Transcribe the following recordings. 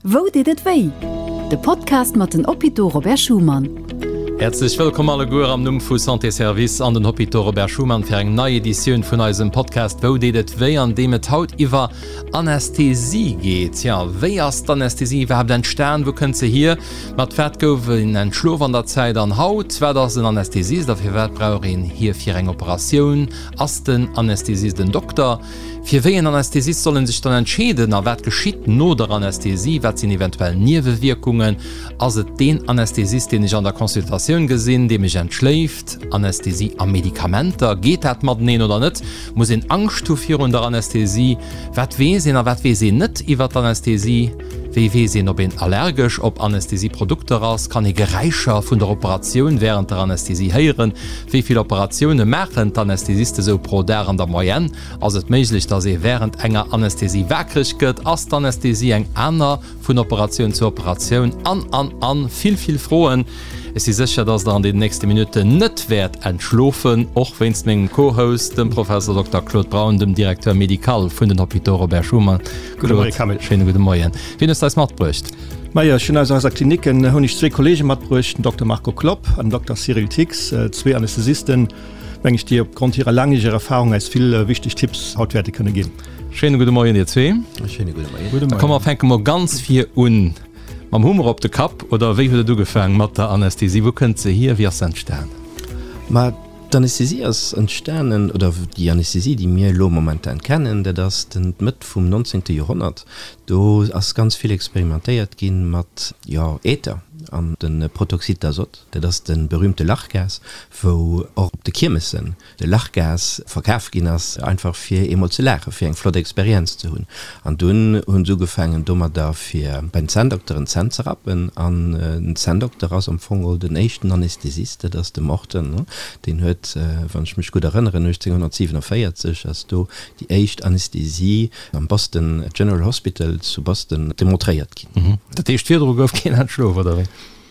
Wou deet et wéi? De Podcast mat den Hôpitaux Robert Schuman. Häerzlech wëllkomm alleguer am Numm vu Santé Service an den Hôpitaux Robert Schuman fir eng nei Editioun vun eisem Podcast Wou deet et wéi, an deem et haut iwwer Anästhesie geet. Jo, wéi ass d'Anästhesie iwwerhaapt entstan? Wou kënnt se hier? Mat wat gouf een entschlof an der Zäit an haut? Wat ass en Anästhesist a firwat brauch een hie fir eng Operatioun? Ass den Anästhesist en Dokter? Fir wéi en Anästhesist soll en sech dann entscheeden a wat geschitt no der Anästhesie? Wat sinn eventuell Niewewierkungen? Ass et deen Anästhesist, deen ech an der Consultatioun gesinn, dee mech entschléift? Anästhesie a Medikamenter, geet dat mateneen oder net? Muss een Angscht hu virun der Anästhesie? Wat weess een a wat weess een net iwwer d'Anästhesie? Wéi weess een, ob een allergesch op Anästhesieprodukter ass? Kann ee Geräischer vun der Operatioun wärend der Anästhesie héieren? Wéi vill Operatioune maachen d'Anästhesiste sou pro Dag an der Moyenne? Ass et méiglech, dass ee wärend enger Anästhesie waakreg gëtt? Ass d'Anästhesie eng aner vun Operatioun zu Operatioun? An, an, an vill, vill Froen. Ech si sécher, dass der an den nächste Minutten net wäert entschlofen, och wéinst mengem Co-Host, dem Professor Dokter Claude Braun, dem Directeur médical vun den Hôpitaux Robert Schuman. Gudde Moie Camille. Schéine gudde Moien. Wien hues de eis matbruecht? Majo, ech hunn aus eiser Kliniken hunn ech zwee Kollege matbruecht, den Dokter Marco Klopp an den Dokter Cyril Thix, zwee Anästhesisten, meng ech, déi opgrond hirer laangjäreger Erfahrung eis vill wichteg Tipps haut wäerte kënne ginn. Schéine gudde Moien dir zwee. Schéine gudde Moien. Gudde Moien. Da komm mer fänke mol ganz vir un. Mam Hummer op de Kapp, oder wéi huet et ugefaang mat der Anästhesie? Wou kënnt se hier? Wéi ass se entstan? Ma d'Anästhesie ass entstanen, oder déi Anästhesie, déi mir elo momentan kennen, dat ass den d'Mëtt vum nonzéngte Joerhonnert. Do ass ganz vill experimentéiert gi mat, jo, Äther an de Protoxyd d'azote, dat ass de berühmte Lachgas, wou och op de Kiermessen de Lachgas verkaf ginn ass, einfach fir eemol ze laachen, fir eng flott Experienz ze hunn. An dunn hunn se ugefaangen domadder fir bei den Zänndokteren d'Zänn ze rappen. An den Zänndokter ass am Fong geholl den éischten Anästhesist, dat ass de Morton, deen huet, wann ech mech gutt erënneren, 1847 ass do déi éischt Anästhesie am Boston General Hospital zu Boston demontréiert ginn. Dat heescht, virdru gouf keen entschlof, oder wéi?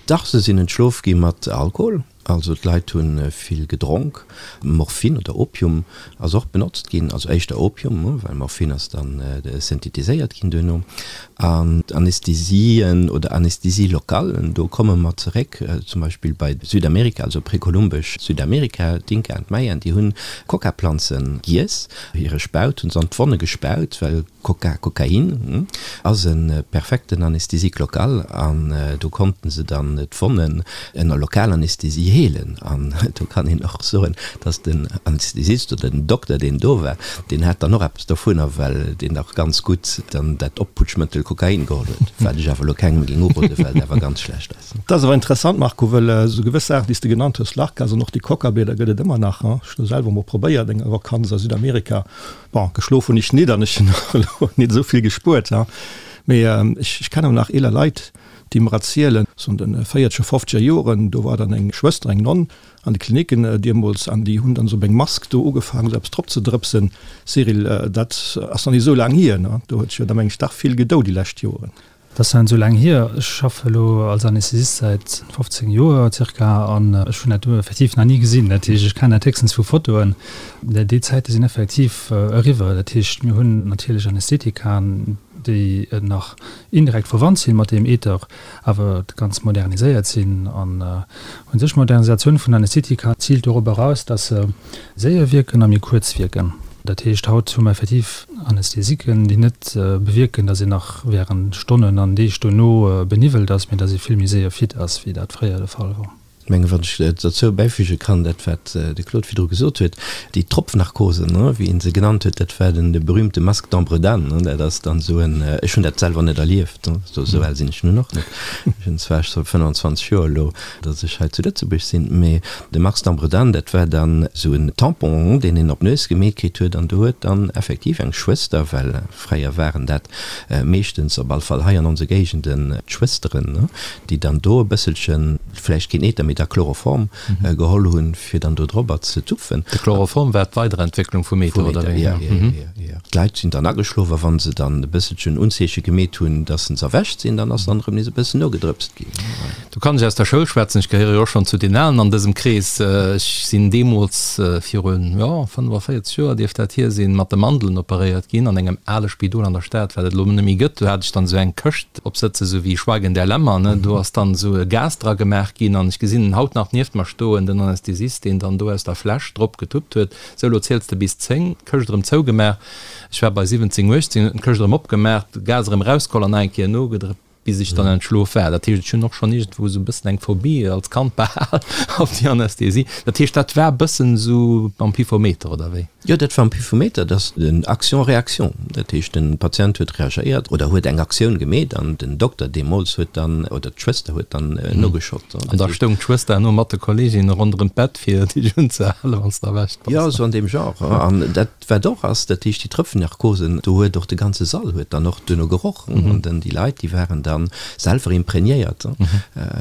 Dach, se sinn entschlof gi mat Alkohol. Also d'Leit hu vill gedronk. Morphin oder Opium ass och benotzt ginn, also éischter Opium, well Morphin ass dann synthetiséiert ginn duerno. An d'Anästhesien oder Anästhesie locale, do komme mer zeréck zum Beispill bei Südamerika, also prekolumbesch Südamerika, d'Inka an d'Mayaen, déi hunn Coca-Planze giess, hire Spaut hunn se an d'Wonne gespaut, well Coca, Kokain, ass e perfekten Anesthésique local an do konnten se dann d'Wonnen ënner Lokalanästhesie heelen. An do kann een och soen, dass den Anästhesist oder den Dokter, deen do war, deen hat dann och eppes dovunner, well deen och ganz gutt dann dat Opputschmëttel Kokain geholl huet, wat ech awer elo kengem géing uroden, well et awer ganz schlecht ass. Dat ass awer interessant, Marco, well esou gewëss Saachen, déi s de genannt hues, Lachgas an och déi Coca-Blieder gëtt et ëmmer nach. Ech hunn selwer emol probéiert eng Vakanz a Südamerika, Bon, geschlof hunn ech nit an ech hunn och elo nit esou vill gespuert, ha. Mee ech, ech kennen nach eeler Leit, déi mer erzielen, sou an de véierzeger, fofzeger Joren, do war dann eng Schwëster, eng Nonn an de Klinicken deemools, an déi hunn dann esou op eng Mask do ugefaangen, esou eppes drop ze drëpsen. Cyril, dat ass nach nit esou laang hier, ne? Do huet sech jo da meng ech dach vill gedou déi lescht Joren. Dat ass net esou laang hier. Ech schaffe elo als Anästhesist säit 15 Joer zirka an ech hunn dat do effektiv nach ni gesinn. Dat heescht, ech kennen dat héchstens vu Fotoen. Déi Zäite sinn effektiv eriwwer. Dat heescht, mir hunn natierlech Anästhetikaen, déi nach indirekt verwannt si mat deem Ether, awer ganz moderniséiert sinn. An u sech d'Modernisatioun vun Anästhetika ziilt dorop eraus, dass se séier wierken a méi kuerz wierken. Dat heescht, haut hu mer effektiv Anästhesiken, déi net bewierken, datt een nach während Stonnen an Deeg dono beniwwelt ass, mee datt ee vill méi séier fit ass, wéi dat fréier de Fall wor. Ech mengen, wann ech dozou bäifüge kann, dat wat de Claude virdru gesot huet, déi Tropfnarkosen, wéi e se genannt huet, dat war den berühmte Masque d'Ambre-Dane. Dat ass dann esou en, ech hunn dat selwer net erlieft, esou al sinn ech nun och net, ech hunn zwar scho 25 Joer elo, datt ech hei zu Lëtzebuerg sinn, mee de Max Dambredan, dat war dann esou en Tampon, deen een op d'Nues gemeet kritt huet, an do huet dann effektiv eng Schwëster, well fréier waren dat meeschtens, op all Fall hei an onse Géigenden, d'Schwësteren, déi dann do e bësselchen, vläicht keen Ether, mee da Chloroform geholl hunn, fir dann do drobber ze tupfen. De Chloroform war d'Weiderentwécklung vum Ether, oder wéi? Jo, jo, jo, jo. D'Leit sinn dann ageschlof, a wa se dann e bësselchen Unzeeche gemeet hunn, datt se erwächt sinn, dann ass dann erëm nees e bëssen nogedrëpst ginn. Do. Do kann ech aus der Schoul schwätzen, ech gehéiere jo och schonn zu den Alen an dësem Krees. Ech sinn deemools, virun, jo, 45 Joer dierft dat hier sinn, mat de Mandelen operéiert ginn an engem ale Spidol an der Stad, wat et elo net méi gëtt. Do hat ech dann esou eng Këscht opsëtzen, esou wéi Schweigen der Lämmer, ne. Do ass dann esou e Gas dra gemaach ginn an ech gesinn en haut nach nieft mer stoen, den Anästhesist, deen dann do aus der Fläsch drop getuppt huet, Sou, elo ziels de bis 10, d'Këscht erëm zougemaach. Ech war bei 17, 18, huet en d'Këscht erëm opgemaach, de Gas erëm erausgeholl an nach eng Kéier nogedrëppt. bis ech dann entschlof war. Dat heescht, ech hunn och schonn iergendwou esou e bëssen eng Phobie als Kand behal op déi Anästhesie. Dat heescht, dat war e bëssen esou mam Pifometer, oder wéi? Jo, dat war am Pifometer, dat ass den Action-Réaction. Dat heescht, de Patient huet reagéiert oder huet eng Aktioun gemeet an den Dokter deemools huet dann, oder d'Schwëster huet dann nogeschott. An da stoung d'Schwëster herno mat de Kolleeginnen ronderëm d'Bett, fir dech unzehalen, wann s de erwächt bass. Jo, esou an deem Genre. An dat Wat och ass, dat heescht déi Tröpfennarkosen, do huet och de ganze Sall huet dann och duerno geroch an dann déi Leit, déi waren dann selwer imprégnéiert,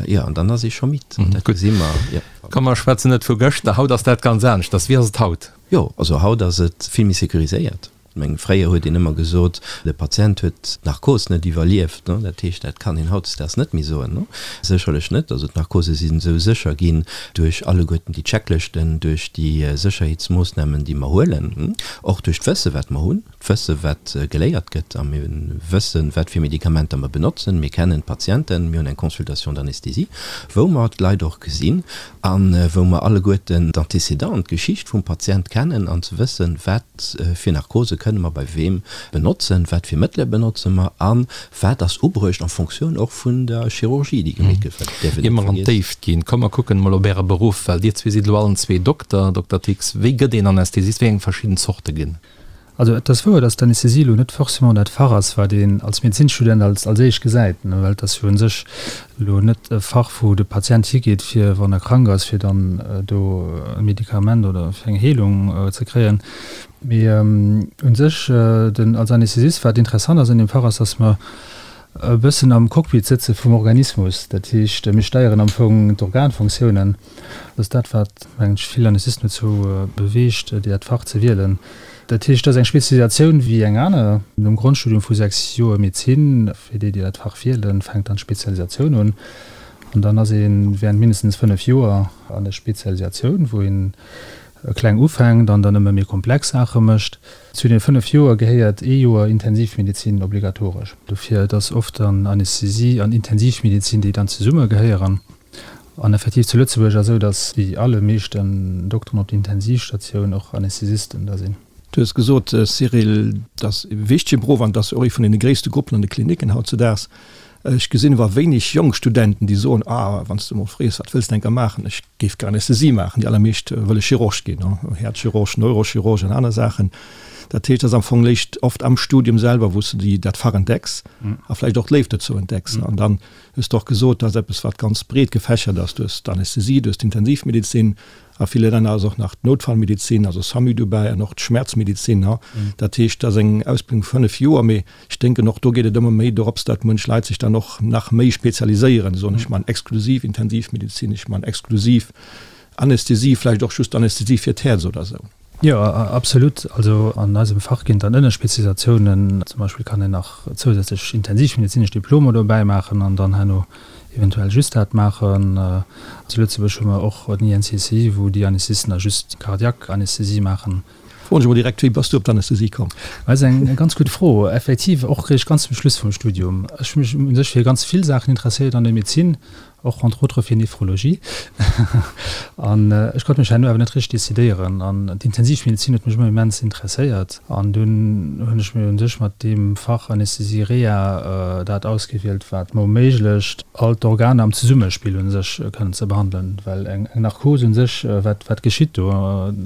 jo, an dann ass ee scho midd an dat gesi mer, jo. Komm mer schwätzen net vu gëschter, haut ass dat ganz aneschters. Wéi ass et haut? Jo, also haut ass et vill méi sécuriséiert. Ech mengen, fréier huet een ëmmer gesot, de Patient huet d'Narkos net iwwerlieft, dat heescht, dat kann een hautdesdaags net méi soen, sécherlech net. Also d'Narkose sinn esou sécher ginn, duerch alleguerten déi Checklëschten, duerch déi Sécherheetsmoossnamen, déi mer huelen, och duerch d'Wësse wat mer hunn, d'Wësse wat geléiert gëtt a mir wëssen, wat fir Medikamenter mer benotzen, mir kennen d'Patienten, mir hunn eng Consultation d'anesthésie, wou mer d'Leit och gesinn a wou mer alleguerten d'Antécédenten, d'Geschicht vum Patient kennen an ze wëssen, wat fir Narkose kënne mer bei weem benotzen, wat fir Mëttele benotze mer a Wat ass ubruecht en Fonctioun och vun der Chirurgie, déi gemeet gëtt, well dat däerf een Ier net mer an vergiessen. d'Déift ginn, komm mer kucken emol op Äre Beruff, well Dir zwee sidd elo allen zwee Dokter. Dokter Tix, wéi gëtt een Anästhesist? Wéi eng verschidden Zorte ginn? Also et ass wouer, dass d'Anästhesie elo net forcément dat Fach ass, wat een als Medezinsstudent als als éischt gesäit, ne, well et ass jo u sech elo net e Fach, wou de Patient higeet, fir wann e krank ass, fir dann do e Medikament oder fir eng Heelung ze kréien. Mee u sech, den als Anästhesist, wat interessant ass an deem Fach ass, dass mer e bëssen am Cockpit sëtze vum Organismus. Dat heescht, mir steieren am Fong d'Organfunktiounen. Dat ass dat, wat, mengen ech, vill Anästhesisten dozou beweegt, dat Fach ze wielen. Dat heescht, dat ass eng Spezialisatioun wéi eng aner. Nom Grondstudium vu 6 Joer Medezin, fir déi, déi dat Fach wielen, fänkt dann d'Spezialisatioun un. An dann ass ee während mindestens 5 Joer an der Spezialisatioun, wou een kleng ufänkt an dann ëmmer méi komplex Saache mécht. Zu den 5 Joer gehéiert ee Joer Intensivmedezin obligatoresch. Dofir, et ass oft dann Anästhesie an Intensivmedezin, déi dann zesumme gehéieren. An effektiv zu Lëtzebuerg ass esou, datt déi allemeeschten Dokteren op der Intensivstatioun och Anästhesisten da sinn. Du hues gesot, Cyril, dat ass e wichtege Beruff an dat ass och ee vun deene gréisste Gruppen an de Klinicken hautzedaags. Ech gesinn awer wéineg jonk Studenten, déi soen, Ah, wann s de emol frees, wat wëlls de enker maachen? Ech géif gär Anästhesie maachen. Déi allermeescht wëlle Chirurg ginn, Häerzchirurg, Neurochirurg an aner Saachen. Dat heescht, et ass am Fong léischt oft am Studium selwer, wou s de déi, dat Fach entdecks a vläicht och d'Léift dozou entdecks. An dann hues de och gesot, dat ass eppes, wat ganz breet gefächert ass. Du hues d'Anästhesie, du hues d'Intensivmedezin, A ville Länner ass och nach d'Noutfallmedezin, also SAMU dobäi an och d'Schmerzmedezin. Dat heescht, dat ass eng Ausbildung vu 5 Joer, mee ech denken och do geet et ëmmer méi dorops, datt munch Leit sech dann och nach méi spezialiséieren, soen ech man exklusiv Intensivmedezin, ech man exklusiv Anästhesie, vläicht och just Anästhesie fir d'Häerz oder esou. Jo, absolut. Also an eisem Fach ginn et dann Ënnerspezialisatiounen. Zum Beispill kann een nach zousätzlech intensivmedezinesch Diplomer dobäi maachen an dann herno eventuell just dat maachen. Zu Lëtzebuerg hu mer och den INCC, wou déi Anästhesisten da just cardiaque Anästhesie maachen. Froen ech emol direkt, Wéi bass du op d'Anästhesie komm? Dat ass eng ganz gutt Fro. Effektiv och réischt ganz zum Schluss vum Studium. Ech hu mech u sech fir ganz vill Saachen interesséiert an der Medezin, och entre autres fir Nephrologie. An ech konnt mech herno awer net richteg decidéieren. An d'Intensivmedezin huet mech ëmmer immens interesséiert. An dunn hunn ech mir u sech mat deem Fach Anästhesie Reha dat ausgewielt, wat mer erméiglecht, all d'Organer am Zesummespill u sech kënnen ze behandelen. Well eng Narkos u sech, wat, wat geschitt do?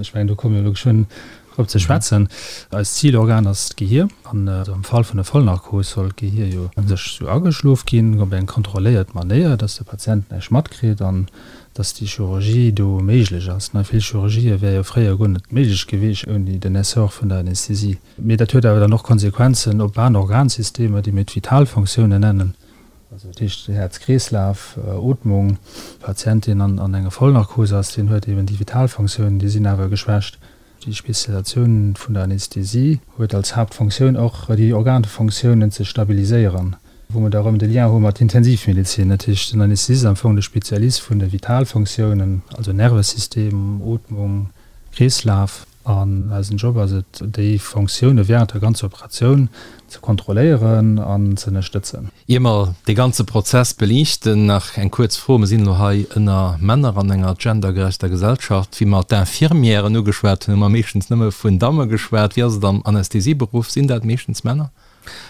Ech mengen, do komme mir elo geschwënn drop ze schwätzen. Eist Zilorgan ass d'Gehier. An am Fall vun der Vollnarkos soll d'Gehier jo u sech sou ageschlof ginn, op eng kontrolléiert Manéier, dass de Patient näischt matkritt an dass déi Chirurgie do méiglech ass. Vill Chirurgië wäre jo fréier guer net méiglech gewiescht ouni den Essor vun der Anästhesie. Mee dat huet awer dann och Konsequenzen op aner Organsystemer, déi mir d'Vitalfonctiounen nennen, also dat heescht Häerz-Kreeslaf, Ootmung. E Patient, deen an enger Vollnarkos ass, deen huet eben déi Vitalfonctiounen, déi sinn awer geschwächt. Déi Spezialisatioun vun der Anästhesie huet als Haaptfonctioun och, déi Organfonctiounen ze stabiliséieren. Wou mer da erëm de Lien hu mat Intensivmedezin. Dat heescht, den Anästhesist ass am Fong de Spezialist vun de Vitalfunktiounen, also Nervesystem, Ootmung, Kreeslaf. An eisen Job ass et, déi Funktioune während der ganzer Operatioun ze kontrolléieren an ze ënnerstëtzen. Ier mer dee ganze Prozess beliichten, nach eng kuerz Fro, Mer sinn elo hei ënner Männer an enger gendergerechter Gesellschaft. Wéi mer d'Infirmièren ugeschwat hunn, hu mer meeschtens nëmme vun Damme geschwat. Wéi ass et am Anästhesieberuff? Sinn dat meeschtens Männer?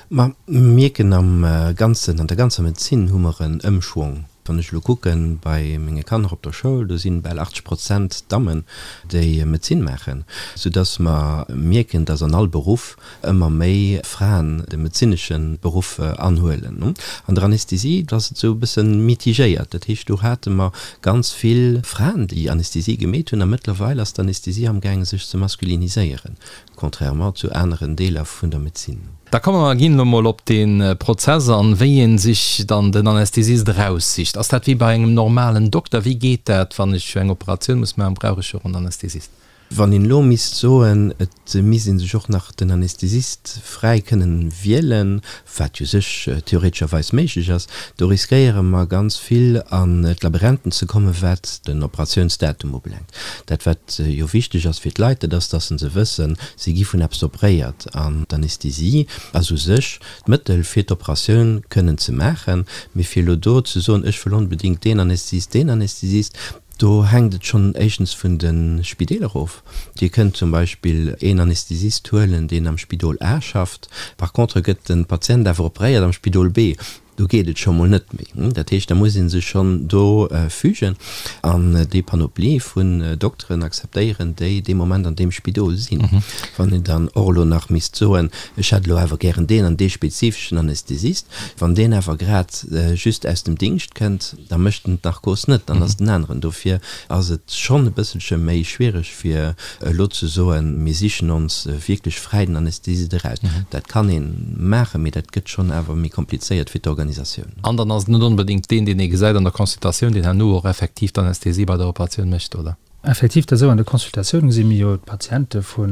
Ma mir mierken am Ganzen, an der ganzer Medezin hu mer en Ëmschwong. Wann ech elo kucke bei menge Kanner op der Schoul, do si bal 80 Prozent Dammen, déi Medezin maachen, soudass mer mierken, dass an all Beruff ëmmer méi Fraen de medezinesche Beruff anhuelen. An der Anästhesie ass et esou e bësse mitigéiert. Dat heescht, do hate mer ganz vill Fraen, déi Anästhesie gemeet hunn, a mëttlerweil ass d'Anästhesie amgaange sech ze masculiniséieren. Contrairement zu aneren Deeler vun der Medezin. Da komme mer ginn elo mol op dee Prozess an, wéi ee sech dann den Anästhesist eraussicht. Ass dat wéi bei engem normalen Dokter? Wéi geet dat, wann ech eng Operatioun muss maachen, brauch ech jo och en Anästhesist? Wann een elo misst soen, et misst ee sech och nach den Anästhesist fräi kënnen wielen, wat u sech theoretescherweis méiglech ass, do riskéiere mer ganz vill an d'Labyrinthen ze kommen, wat den Operatiounsdatum ubelaangt. Dat wat jo wichteg ass fir d'Leit, dat ass, dass se wëssen, si gi vun eppes operéiert an d'Anästhesie ass u sech d'Mëttel fir d'Operatioun kënnen ze maachen. Mee fir elo do ze soen, ech wëll onbedéngt deen Anästhesist, deen Anästhesist, do hänkt et schonn éischtens vun de Spideeler of. Dir kënnt zum Beispill een Anästhesist huelen, deen am Spidol A schafft. Par contre gëtt de Patient awer operéiert am Spidol B. Do geet et scho mol net méi. Dat heescht, da muss ee sech schonn do fügen an déi Panoplie vun Dokteren akzeptéieren, déi dee Moment an deem Spidol sinn. Wann een dann och elo nach misst soen, ech hätt elo awer gären deen an dee spezifeschen Anästhesist, wann deen awer grad just aus dem Dingscht kënnt, da mécht en d'Narkos net, dann ass et en aneren. Dofir ass et schonn e bësselche méi schwiereg, fir elo ze soen, mir sichen ons wierklech fräi den Anästhesist eraus. Dat kann ee maachen, mee dat gëtt schonn awer méi komplizéiert fir d'Organisatioun. An dann ass et net onbedéngt deen, deen ee gesäit an der Consultatioun, deen herno och effektiv d'Anästhesie bei der Operatioun mécht, oder? Effektiv, dat esou. An de Consultatioune gesi mir jo d'Patiente vu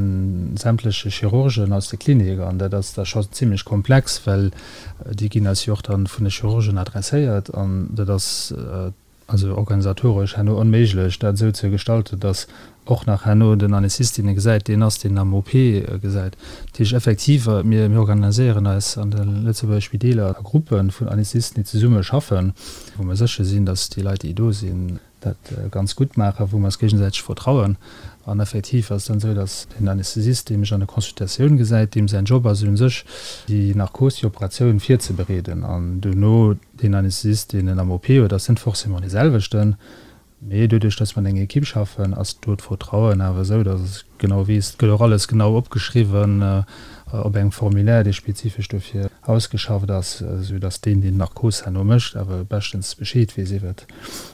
sämtleche Chirurgen aus de Klinik an dat ass da scho zimlech komplex, well déi ginn eis jo och dann vun de Chirurgen adresséiert an dat ass also organisatoresch herno onméiglech, dat esou ze gestalten, datt och nach herno den Anästhesist, deen e gesäit, deen ass, deen am OP gesäit. Dat heescht effektiv, mir organiséieren eis an de Lëtzebuerger Spideeler a Gruppe vun Anästhesisten, déi zesumme schaffen, wou mer sécher sinn, datt déi Leit, déi do sinn, dat ganz gutt maachen, wou mer eis géigesäiteg vertrauen. An effektiv ass et dann esou, datt den Anästhesist, dee mech an der Consultatioun gesäit, deem säin Job ass u sech, déi Narkos, déi Operatioun virzebereeden. An duerno deen Anästhesist, deen en am OP huet, ass net forcément dee selwechten. Mee doduerch, datt mer an enger Ekipp schaffen, ass do d'Vertrauen awer esou, datt ech genau weess, et gëtt och alles genau opgeschriwwen op engem Formulaire, dee spezifesch dofir ausgeschafft ass, esou datt deen, deen d'Narkos herno mécht, awer beschtens Bescheed weess iwwert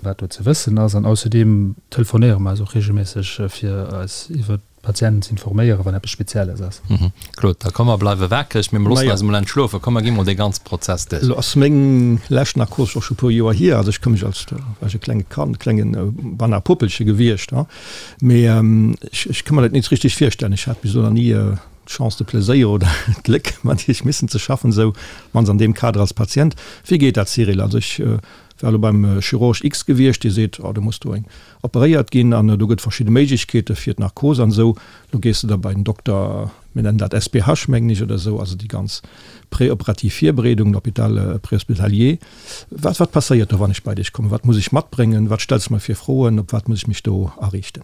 wat do ze wëssen ass. An ausserdeem telefonéiere mer eis och reegelméisseg, fir eis iwwert d'Patienten ze informéieren, wann eppes Spezielles ass. Claude, da komm mer bleiwe wakereg, mee mer loossen eis emol entschlofen. Komm mer gi mol dee ganze Prozess duerch. Elo ass meng lescht Narkos och scho e puer Joer hier. Also ech ka mech als, do war ech e klenge Kand, klenge beinahe Puppelche gewiescht, mee ech, ech ka mer dat net richteg virstellen. Ech hat bis elo nach ni d'Chance, de Pleséier oder d'Gléck mat Iech missen ze schaffen, esou mannst an deem Kader als Patient. Wéi geet dat, Cyril? Also ech war elo beim Chirurg X gewiescht, dee seet, oh do muss do eng operéiert ginn an do gëtt verschidde Méiglechkeete fir d'Narkos an esou. Lo gees de da bei den Dokter, mir nennen dat SPH mengen ech oder esou, also déi ganz preoperativ Virbereedung, l'hôpital préhospitalier. Wat, wat passéiert do, wann ech bei dech kommen? Wat muss ech matbréngen? Wat stells de mer fir Froen? Op wat muss ech mech do ariichten?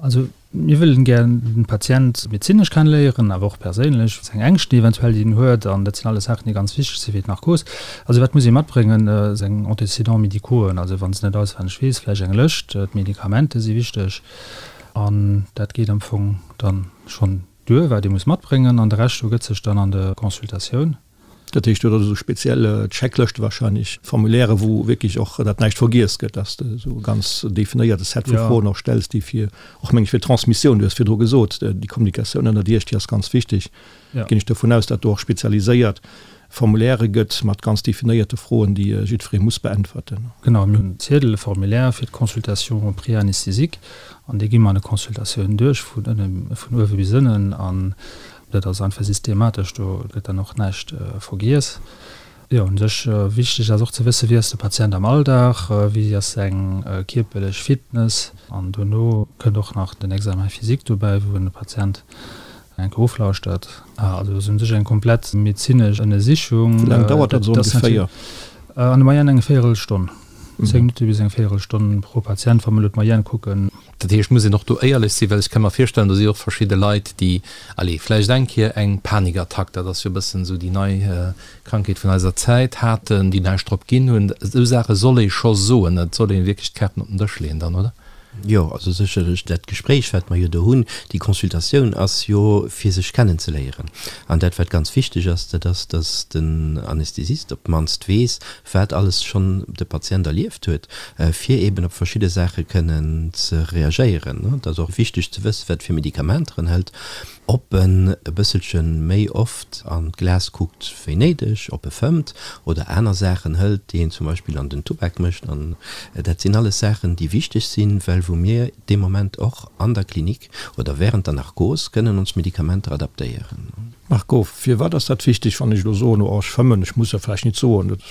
Also mir wëllen gär den Patient medezinesch kennenléieren, awer och perséinlech, seng Ängschten eventuell, déi en huet, an dat sinn alles Saachen, déi ganz wichteg si fir d'Narkos. Also wat muss ee matbréngen? Seng Antécédents médicauxen, also wann se net auswenneg weess, vläicht eng Lëscht, d'Medikamenten si wichteg an dat geet am Fong dann schonn duer, wat ee muss matbréngen an de Rescht ergëtt sech dann an der Consultatioun. Dat heescht, do hutt Der esou speziell Checklëschte wahrscheinlech, Formulaire, wou wierklech och dat näischt vergiess gëtt, dass de esou e ganz definéierte Set vu Froen och stells, déi fir och, meng ech, fir d'Transmissioun, du hues virdru gesot, déi Kommunikatioun ënnert Iech, déi ass ganz wichteg. Ginn ech dovun aus, dat do och spezialiséiert Formulaire gëtt mat ganz definéierte Froen, déi jiddweree muss beäntwerten. Genau, mir hunn en Ziedel, e Formulaire fir d'Consultation préanesthésique an dee gi mer an der Consultatioun duerch, vun ënne, vun uewe bis ënnen. An Dat ass einfach systematesch, do gëtt dann och näischt vergiess. Jo, u sech wichteg ass och ze wëssen, wéi ass de Patient am Alldag, wéi ass seng kierperlech Fitness. An dono kënnt och nach den Examen physique dobäi, wou een de Patient eng Kéier oflauschtert. Also ass u sech eng komplett medezinesch Ënnersichung. Wéi laang dauert dat esou ongeféier? An der Moyenne eng Véierelstonn, 10 Minutte bis eng Véierelstonn pro Patient, wa mer elo d'Moyenne kucken. Dat heescht, muss een och do éierlech sinn, well ech ka mer virstellen, do si och verschidde Leit, déi, allez, vläicht eng Kéier eng Panikattack, dat ass jo e bëssen esou déi nei Krankheet vun eiser Zäit, haten, déi näischt drop ginn hunn. Esou Saache soll ee scho soen, et soll ee wierklech d'Kaarten op den Dësch leeën dann, oder? Jo, also sécherlech dat Gespréich, wat mer jo do hunn, déi Consultatioun ass jo fir sech kennenzeléieren. An dat, wat ganz wichteg ass, dat ass, dass den Anästhesist op d'mannst weess, wat alles schonn de Patient erlieft huet, fir eeben op verschidde Saache kënnen ze reagéieren. Et ass och wichteg ze wëssen, wat fir Medikamenter en hëlt, ob en e bësselche méi oft an d'Glas kuckt wéi néideg, ob e fëmmt oder aner Saachen hëlt, déi een zum Beispill an den Tubak mécht. An dat sinn alles Saachen, déi wichteg sinn, well wou mir dee Moment och an der Klinik oder während der Narkos kënnen ons Medikamenter adaptéieren. Marco, firwat ass dat wichteg, wann ech elo soen, oh ech fëmmen, ech muss jo vläicht nit soen, dat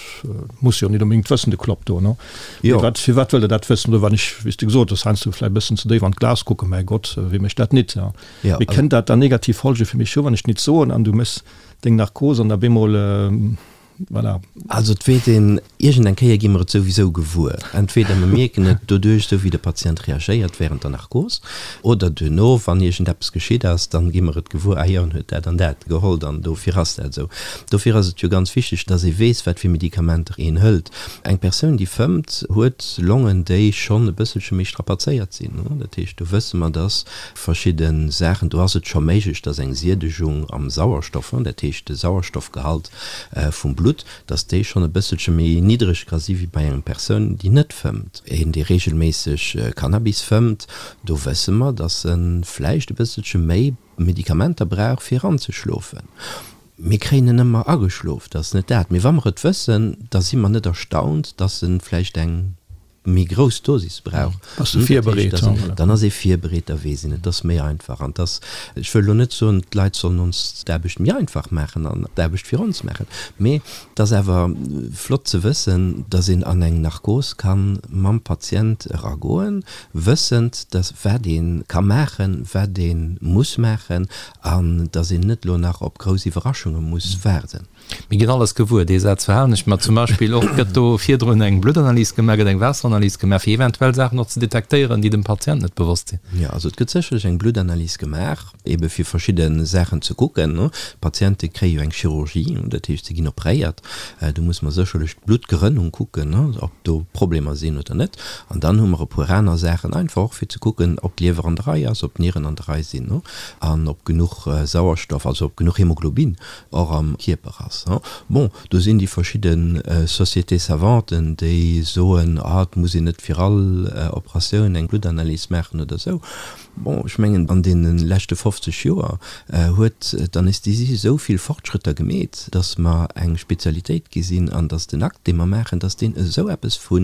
muss jo nit onbedéngt wëssen, de Klopp do, no? Mee wat, firwat wëllt Der dat wëssen? Oder wann ech, wéi s de gesot hues, heiansdo vläicht e bëssen ze déif an d'Glas kucken, mäi Gott, wie mécht dat nit, ja? Mee kënnt dat dann negativ Folge fir mech hu, wann ech nit soen an du méchs deng Narkos an da bemol, Voilà. Also et weess een, iergend eng Kéier gi mer et souwisou gewuer. Entweder mer mierken et doduerch, esou wéi de Patient reagéiert während der Narkos, oder duerno, wann iergend eppes geschitt ass, dann gi mer et gewuer, ah jo, en huet dat an dat geholl an dofir ass dat esou. Dofir ass et jo ganz wichteg, dass ee weess, wat fir Medikamenter een hëlt. Eng Persoun, déi fëmmt, huet Longen, déi schonn e bësselche méi strapazéiert sinn. Dat heescht, do wësse mer, dass verschidde Saachen, do ass et scho méiglech, dass eng Siedegung am Sauerstoff, dat heescht de Sauerstoffgehalt, vum Blutt, dass déi schonn e bësselche méi niddreg ka si wéi bei engem Persoun, déi net fëmmt. Een, dee reegelméisseg Cannabis fëmmt, do wësse mer, dass e vläicht e bësselche méi Medikamenter brauch, fir anzeschlofen. Mir kréien en ëmmer ageschlof, dat ass net dat. Mee wa mer et wëssen, da si mer net erstaunt, dass e vläicht eng. méi grouss Dosis brauch, Bass du virbereet? Dann ass ee virbereet, da weess een, et ass méi einfach. An et ass, ech wëll elo net soen, d'Leit sollen ons d'Aarbecht méi einfach maachen an d'Aarbecht fir ons maachen, mee et ass awer flott ze wëssen, dass een an eng Narkos ka mam Patient eragoen, wëssend, dass wat ee ka maachen, wat ee muss maachen an dass een net elo nach op grouss Iwwerraschunge muss waarden. Mir ginn alles gewuer, dee Saz verhalen ech mer. Zum Beispill och, gëtt do virdrun eng Bluttanalys gemaach, gëtt eng Waasseranalys gemaach, fir eventuell Saachen och ze detektéieren, déi dem Patient net bewosst sinn? Jo, also et gëtt sécherlech eng Bluttanalys gemaach, ebe fir verschidde Saachen ze kucken. D'Patiente kréie jo eng Chirurgie, dat heescht, se ginn opréiert. Do muss mer sécherlech d'Bluttgerënnung kucken, ob do Problemer sinn oder net. An dann hu mer e puer aner Saachen, einfach och fir ze kucken, ob d'Liewer an der Rei ass, ob d'Nieren an der Rei sinn an ob genuch Sauerstoff, also ob genuch Hemoglobin och am Kierper ass. Bon, do sinn déi verschidde Sociétés savantes, déi soen, ah, et muss een net fir all Operatioun eng Bluttanalys maachen oder esou. Bon, ech mengen, an deene leschte 50 Joer huet d'Anästhesie esou vill Fortschrëtter gemeet, dass mer eng Spezialitéit gi sinn an dass den Akt, dee mer maachen, dass deen esou eppes vu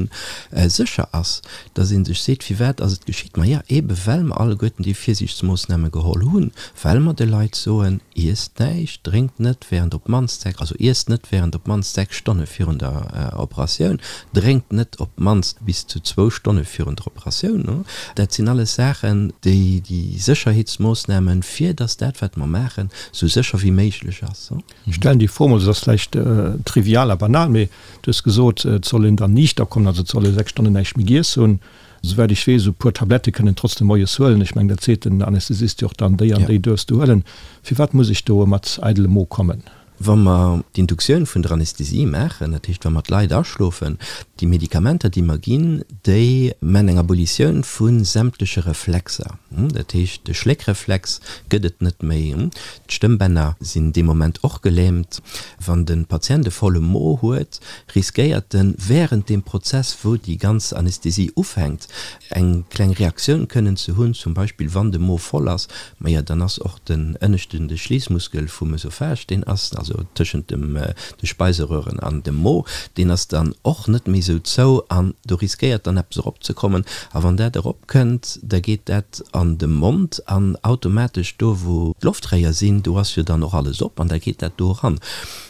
sécher ass, dass ee sech seet, Firwat ass et geschitt? Maja, eebe well mer alleguerten déi Virsiichtsmoossname geholl hunn, well mer de Leit soen, Iesst näischt, drénkt net während op d'mannst 6, also iesst net während op d'mannst 6 Stonne virun der Operatioun, drénkt net op d'mannst bis zu zwou Stonne virun der Operatioun. Dat sinn alles Saachen, déi déi Sécherheetsmoossnamen, fir dass dat, wat mer maachen, esou sécher wéi méiglech ass. Ech stellen déi Fro mol, se ass vläicht trivial a banal, mee du hues gesot, et soll een dann niichter kommen, also et soll ee 6 Stonnen näischt méi giess hunn. Souwäit ech weess, esou e puer Tablette kënnen trotzdem moies huelen. Ech mengen, dat seet den Anästhesist jo och dann, déi an déi duerfs du huelen. Firwat muss ech do mat eidelem Mo kommen? Wa mer d'Induktioun vun der Anästhesie maachen, dat heescht wa mer d'Leit aschlofen, déi Medikamenter déi mer ginn, déi man eng Abolitioun vu sämtleche Reflexer. Dat heescht de Schléckreflex gëtt et net méi. D'Stëmmbänner sinn dee Moment och gelähmt. Wann de Patient e volle Mo huet, riskéiert en während deem Prozess, wou déi ganz Anästhesie ufänkt, eng kleng Reaktioun kënnen ze hunn, zum Beispill wann de Mo voll ass, maja dann ass och den ënneschten, de Schliissmuskel vum Ösophage, deen ass, also. also tëschent dem de Speiseröhren an dem Mo, deen ass dann och net méi esou zou an do riskéiert dann eppes eropzekommen. A wann dat eropkënnt, da geet dat an de Mond an automatesch do wou d'Loftréier sinn, do ass jo dann och alles op an da geet dat do eran.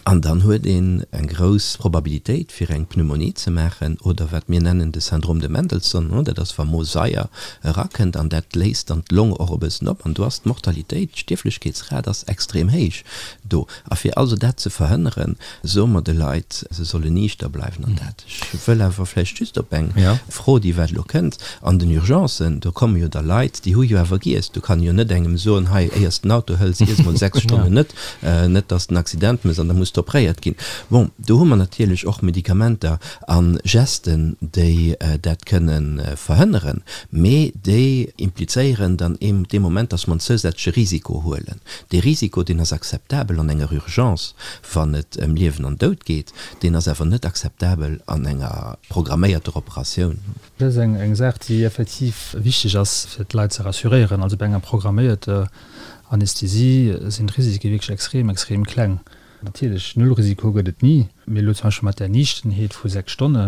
An dann huet een eng grouss Probabilitéit fir eng Pneumonie ze maachen oder wat mir nennen de Syndrome de Mendelson, dat ass wa Mosaier erakënnt an dat léist dann d'Long och e bëssen op an do ass d'Mortalitéit, d'Stierflechkeetsrat ass extrem héich do. A fir also dat ze verhënneren, soe mer de Leit, se sollen niichter bleiwen an dat. Ech wëll awer vläicht just op eng Fro, déi wat elo kënnt, an den Urgencen, do komme jo da Leit, déi hu jo awer giess. Do kann ee jo net engem soen, hei, éier s de den Auto hëls, iess mol 6 Stonnen net, net dass de en Accident méchs an da muss de opréiert ginn. Bon, do hu mer natierlech och Medikamenter a Gesten, déi dat kënne verhënneren, mee déi implizéieren dann dee Moment, dass mer en zousätzleche Risiko huelen. Dee Risiko, deen ass akzeptabel an enger Urgence, wann et ëm Liewen an Doud geet, deen ass awer net akzeptabel an enger programméierter Operatioun. Dat ass eng Saach, déi effektiv wichteg ass, fir d'Leit ze rassuréieren. Also bei enger programméierter Anästhesie sinn d'Risike wierklech extrem, extrem kleng. Natierlech, Nullrisiko gëtt et ni. Mee elo zum Beispill mat där Niichtenheet vu 6 Stonne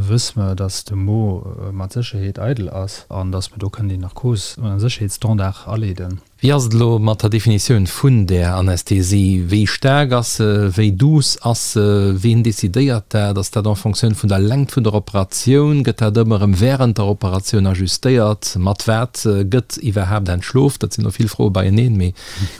wësse mer, datt de Mo mat Sécherheet eidel ass an datt mer do kënnen déi Narkos un e Sécherheetsstandard aleeden. Wéi ass et elo mat der Definitioun vun där Anästhesie? Wéi staark ass se? Wéi douce ass se? Ween decidéiert dat? Ass dat en Fonctioun vun der Längt vun der Operatioun? Gëtt dat ëmmer erëm wärend der Operatioun ajustéiert? Mat wat gëtt iwwerhaapt entschlof? Dat sinn elo vill Froe beieneen, mee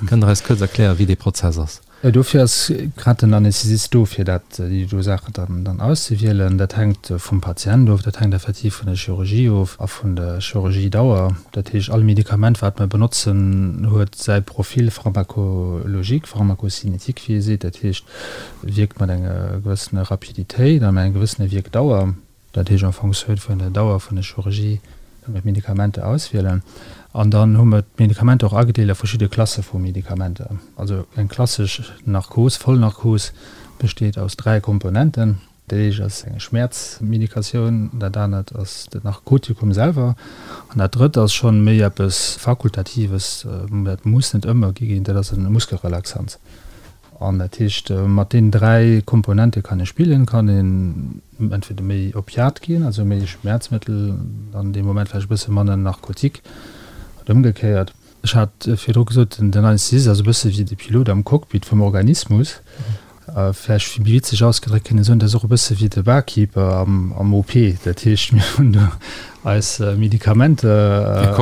kënnt Der eis kuerz erklären, wéi dee Prozess ass? Dofir ass grad den Anästhesist do, fir dat, déi do Saachen dann, dann auszewielen. Dat hänkt vum Patient of, dat hänkt effektiv vun der Chirurgie of a vun der Chirurgiedauer. Dat heescht, all Medikament, wat mer benotzen, huet säi Profil pharmacologique, pharmacocinétique, wéi ee seet. Dat heescht, wierkt mat enger gewëssener Rapiditéit a mat enger gewëssener Wierkdauer. Dat heescht en Fonctioun vun der Dauer vun der Chirurgie kënne mer d'Medikamenter auswielen. An dann hu mer d'Medikamenter och agedeelt a verschidde Klasse vu Medikamenter. Also eng klassesch Narkos, Vollnarkos, besteet aus 3 Komponenten. Dat éischt ass eng Schmäerzmedikatioun, dat anert ass den Narkotikum selwer an dat drëtt ass schonn méi eppes Fakultatives, dat muss net ëmmer gi ginn, dat ass e Muskelrelaxans. An dat heescht, mat deenen 3 Komponente kann ee spillen, kann een entweder méi Opiat ginn, also méi Schmerzmëttel, dann dee Moment vläicht e bësse manner Narkotik oder ëmgekéiert. Ech hat virdru gesot, den Anästhesist ass e bësse wéi de Pilot am Cockpit vum Organismus. Vläicht méi witzeg ausgedréckt kënnt een soen, dat ass och e bësse wéi de Barkeeper am OP. Dat heescht, mir hunn do eis Medikamenter,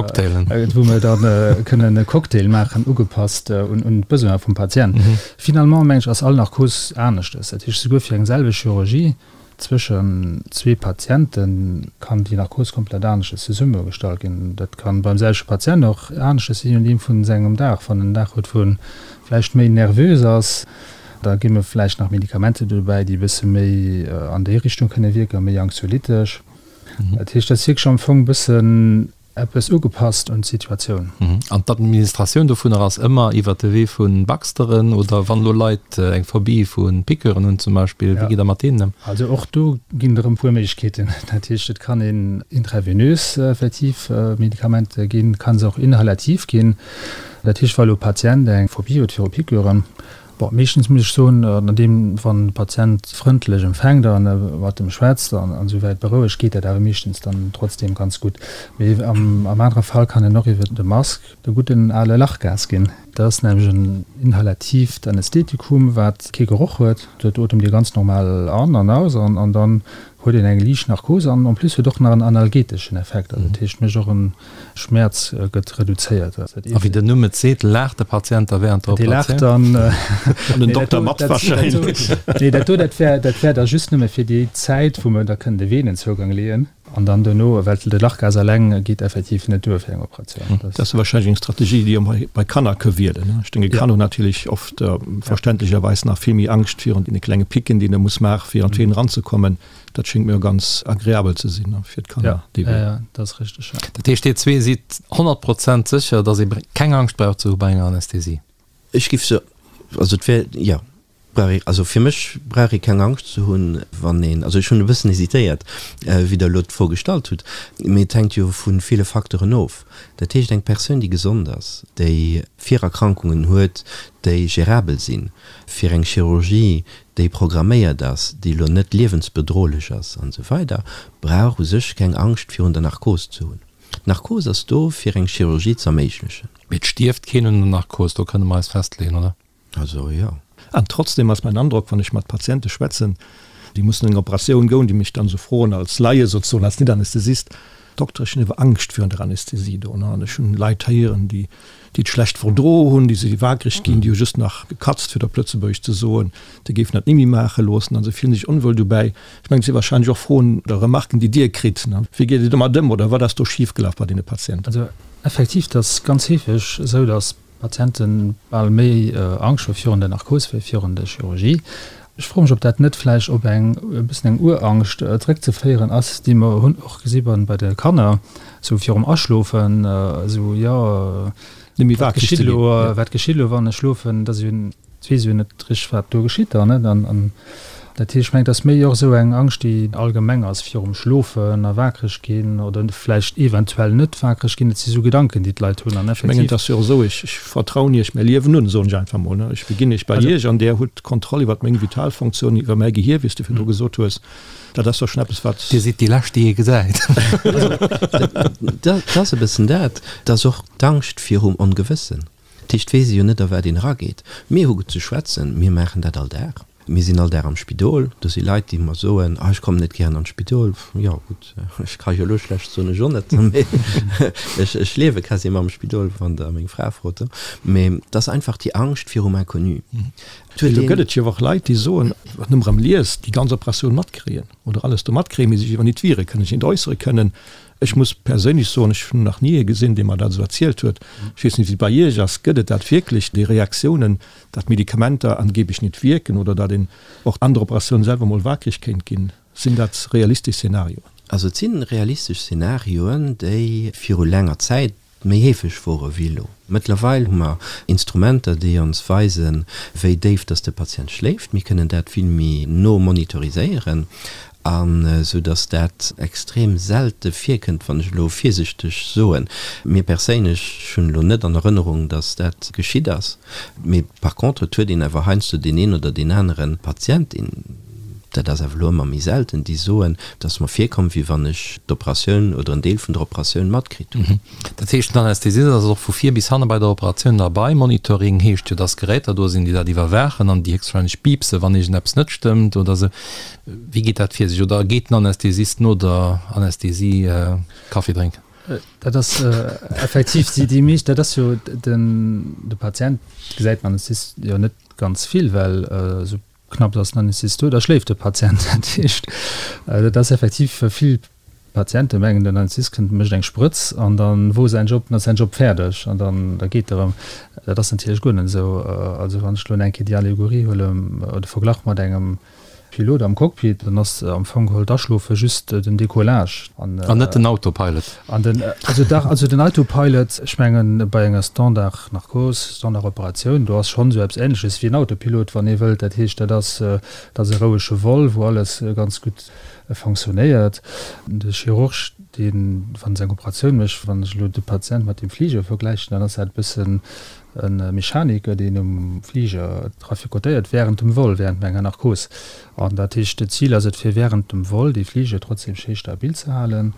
wou mer dann kënnen e Cocktail maachen, ugepasst un d'Besoin vum Patient. Finalement, meng ech, ass all Narkos aneschtes. Dat heescht, souguer fir eng selwecht Chirurgie zwëschen zwee Patiente kann déi Narkos komplett aneschtes zesummegestallt ginn. Dat kann beim selwechte Patient och aneschtes sinn, je nodeem vun sengem Dag. Wann en Dag huet, wou en vläicht méi nervös ass, da gi mer vläicht nach Medikamenter dobäi, déi e bësse méi an déi Richtung kënne wierken, méi anxiolytesch. Dat heescht, dat ass wierklech am Fong e bëssen eppes ugepasst un d'Situatioun. An d'Administratioun dovunner ass ëmmer iwwert de Wee vu Baxteren oder wann elo Leit eng Phobie vu Piqûren hunn zum Beispill, wéi gitt Der mat deenen ëm? Also och do ginn et erëm e puer Méiglechkeeten. Dat heescht, et kann een intravenös effektiv Medikamenter ginn, et kann se och inhalativ ginn. Dat heescht, wa elo e Patient eng Phobie huet viru Piqûren, Bon, meeschtens muss ech soen, an deem, wann de Patient frëndlech empfänkt a mat em schwätzt an esou wäit berouegt, geet dat awer meeschtens dann trotzdeem ganz gutt. Mee am anere Fall kann en och iwwer de Mask de gudden ale Lachgas ginn. Dat ass nämlech en inhalatiivt Anästhetikum, wat kee Geroch huet. Dat otemt ee ganz normal an an aus an dann huet een eng liicht Narkos an en plus huet och nach en analgeteschen Effekt, also dat heescht mécht och en Schmäerz gëtt reduzéiert. A wéi den Numm et seet, laacht de Patient da während der Operatioun? Dee laacht dann. An den Dokter mat wahrscheinlech. Nee, dat do, dat wär, dat wär da just nëmme fir déi Zäit, wou mer da kënnen de Venenzougang leeën. An dann duerno, well de Lachgas eleng geet effektiv net duer fir eng Operatioun. Dat ass wahrscheinlech eng Strategie, déi ee bei Kanner ka wielen. Ech denke, Kanner hunn natierlech oft verständlecherweis nach vill méi Angscht virun deene klenge Picken, déi een da muss maachen, fir an d'Venen eranzekommen. Dat schéngt mir ganz agreabel ze sinn fir d'Kanner. Ja, ja, ja, dat ass richteg. Ja. Dat heescht, Dir zwee sidd 100 Prozent sécher, datt ee keng Angscht brauch ze hu bei enger Anästhesie? Ech giff se, also et wär, jo. Brauch ee, also fir mech brauch ee keng Angscht ze hunn, wann een, also ech hunn e bëssen hesitéiert, wéi Der elo d'Fro gestallt hutt, mee et hänkt jo vu ville Facteuren of. Dat heescht, eng Persoun, déi gesond ass, déi Virerkrankungen huet, déi gérabel sinn, fir eng Chirurgie, déi programméiert ass, déi elo net liewensbedrohlech ass an esou weider, brauch u sech keng Angscht virun der Narkos ze hunn. D'Narkos ass do, fir eng Chirurgie z'erméiglechen. Mee et stierft keen un der Narkos, do kënne mer eis festleeën, oder? Also jo. An trotzdem ass mäin Androck, wann ech mat Patiente schwätzen, déi mussen an eng Operatioun goen, déi mech dann esou froen als Laie sozesoen, als Net-Anästhesist, Dokter, ech hunn awer Angscht virun der Anästhesie do. An ech hunn Leit héieren, déi déi et schlecht verdro hunn, déi si waakreg ginn, déi hu just nach gekatzt, fir et op Lëtzebuergesch ze soen, déi géifen dat ni méi maache loossen a se fillen sech onwuel dobäi. Ech mengen, et si warscheinlech och Froen oder Remarken, déi Dir kritt. Wéi geet Dir domat ëm oder wat ass do schifgelaf bei deene Patienten? Also effektiv, et ass ganz heefeg esou, datt Patienten bal méi Angscht hu virun der Narkos wéi virun der Chirurgie. Ech froe mech, ob dat net vläicht op eng e bëssen eng Urangscht zeréckzeféieren ass, déi mer hunn och gesi bei de Kanner, sou virum Aschlofen, esou, jo, wat geschitt elo, wat geschitt elo, wann ech schlofen, dat ass jo Et weess jo net richteg, wat do geschitt dann, net? An dat heescht, ech mengen, et ass méi och esou eng Angscht, déi allgemeng ass virum Schlofen a waakreg ginn oder vläicht eventuell net waakreg ginn. Et si sou Gedanken, déi d'Leit hunn an Ech mengen, et effektiv. ass jo och esou, ech, ech vertrauen Iech mäi Liewen un, soen ech einfach mol, ne? Ech beginn Iech bei Iech an Där hutt d'Kontroll iwwert meng Vitalfunktiounen, iwwer mäi Gehier, wéi s de virdru gesot hues. Dat ass jo schonn eppes, wat. Dir sidd déi Lescht, déi ee gesäit. Dat ass e bëssen dat. Et ass och d'Angscht virum Ongewëssen. Dat heescht, weess ee jo net a wat een erageet. Mir hu ze schwätzen, mir maachen dat all Dag. Mir sinn all Dag am Spidol. Do si Leit, déi mer soen, ah ech kommen net gären an d'Spidol. Jo gutt, ech ka jo elo schlecht soen, ech och net, mee ech ech liewe quasi ëmmer am Spidol, wann Der meng Fra frot. Mee et ass einfach déi Angscht virum Inconnu. Et huet een. Do gëtt et jo och Leit, déi soen, wat nëmme erëm liest, déi ganz Operatioun matkréien oder alles do matkréien, mee sech iwwer nit wiere kënnen, sech nit äussere kënnen. Ech muss perséinlech soen, ech hunn nach ni ee gesinn, dee mer dat esou erzielt huet. Ech weess net, wéi et bei Iech ass. Gëtt et dat wierklech, déi Reaktiounen, datt Medikamenter angeblech net wierken oder datt een och an der Operatioun selwer mol waakreg kéint ginn? Sinn dat realistesch Szenarioen? Also et si realistesch Szenarioen, déi viru laanger Zäit méi heefeg wore wéi elo. Mëttlerweil hu mer Instrumenter, déi ons weisen, wéi déif dass de Patient schléift. Mir kënnen dat vill méi no monitoriséieren, an esou dass dat extrem selte virkënnt, wann ech elo virsichteg soen. Mir perséinlech, ech hunn elo net an Erënnerung, dass dat geschitt ass. Mee par contre, et huet een awer heiansdo deen een oder deen anere Patient, deen, dat ass awer elo ëmmer méi selten, déi soen, et ass mer virkomm, wéi wann ech d'Operatioun oder en Deel vun der Operatioun matkritt hunn. Dat heescht, den Anästhesist ass och vu vir bis hanne bei der Operatioun derbei. Monitoring heescht jo, dass Geräter do sinn, déi dat iwwerwaachen an déi héchstwahrscheinlech piipse wann iergendeppes net stëmmt oder esou. Wéi geet dat vir sech? Oder geet den Anästhesist no der Anästhesie Kaffi drénken? Dat ass effektiv déi meescht, dat ass jo den, de Patient gesäit den Anästhesist jo net ganz vill, well esou Knapps ass den Anästhesist do, da schléift de Patient. Dat heescht, dat ass effektiv vill Patiente mengen, den Anästhesist kënnt, mécht eng Sprëtz an dann wor säin Job, dann ass säin Job fäerdeg an dann da geet e rëm. Dat ass natierlech guer net esou. Also wann ech elo eng Kéier déi Allegorie huelen oder de Verglach mat engem Pilot am Cockpit, dann ass am Fong geholl d'Aschlofe just den Decollage. An net den Autopilot. An den, also dach, also den Autopilot, ech mengen bei enger Standard Narkos, Standard Operatioun, do ass schonn esou eppes Ähnleches wéi en Autopilot, wann ee wëllt. Dat heescht, dat ass, dat ass e rouege Vol, wou alles ganz gutt fonctionnéiert. De Chirurg, deen, wann en seng Operatioun mécht, wann ech elo de Patient mat dem Fliger vergläichen, dann ass dat e bëssen e Mechaniker, deen um Fliger traficotéiert während dem Vol, während enger Narkos. An dat heescht, d'Zil ass et, fir während dem Vol dee Fliger trotzdem schéi stabil ze halen.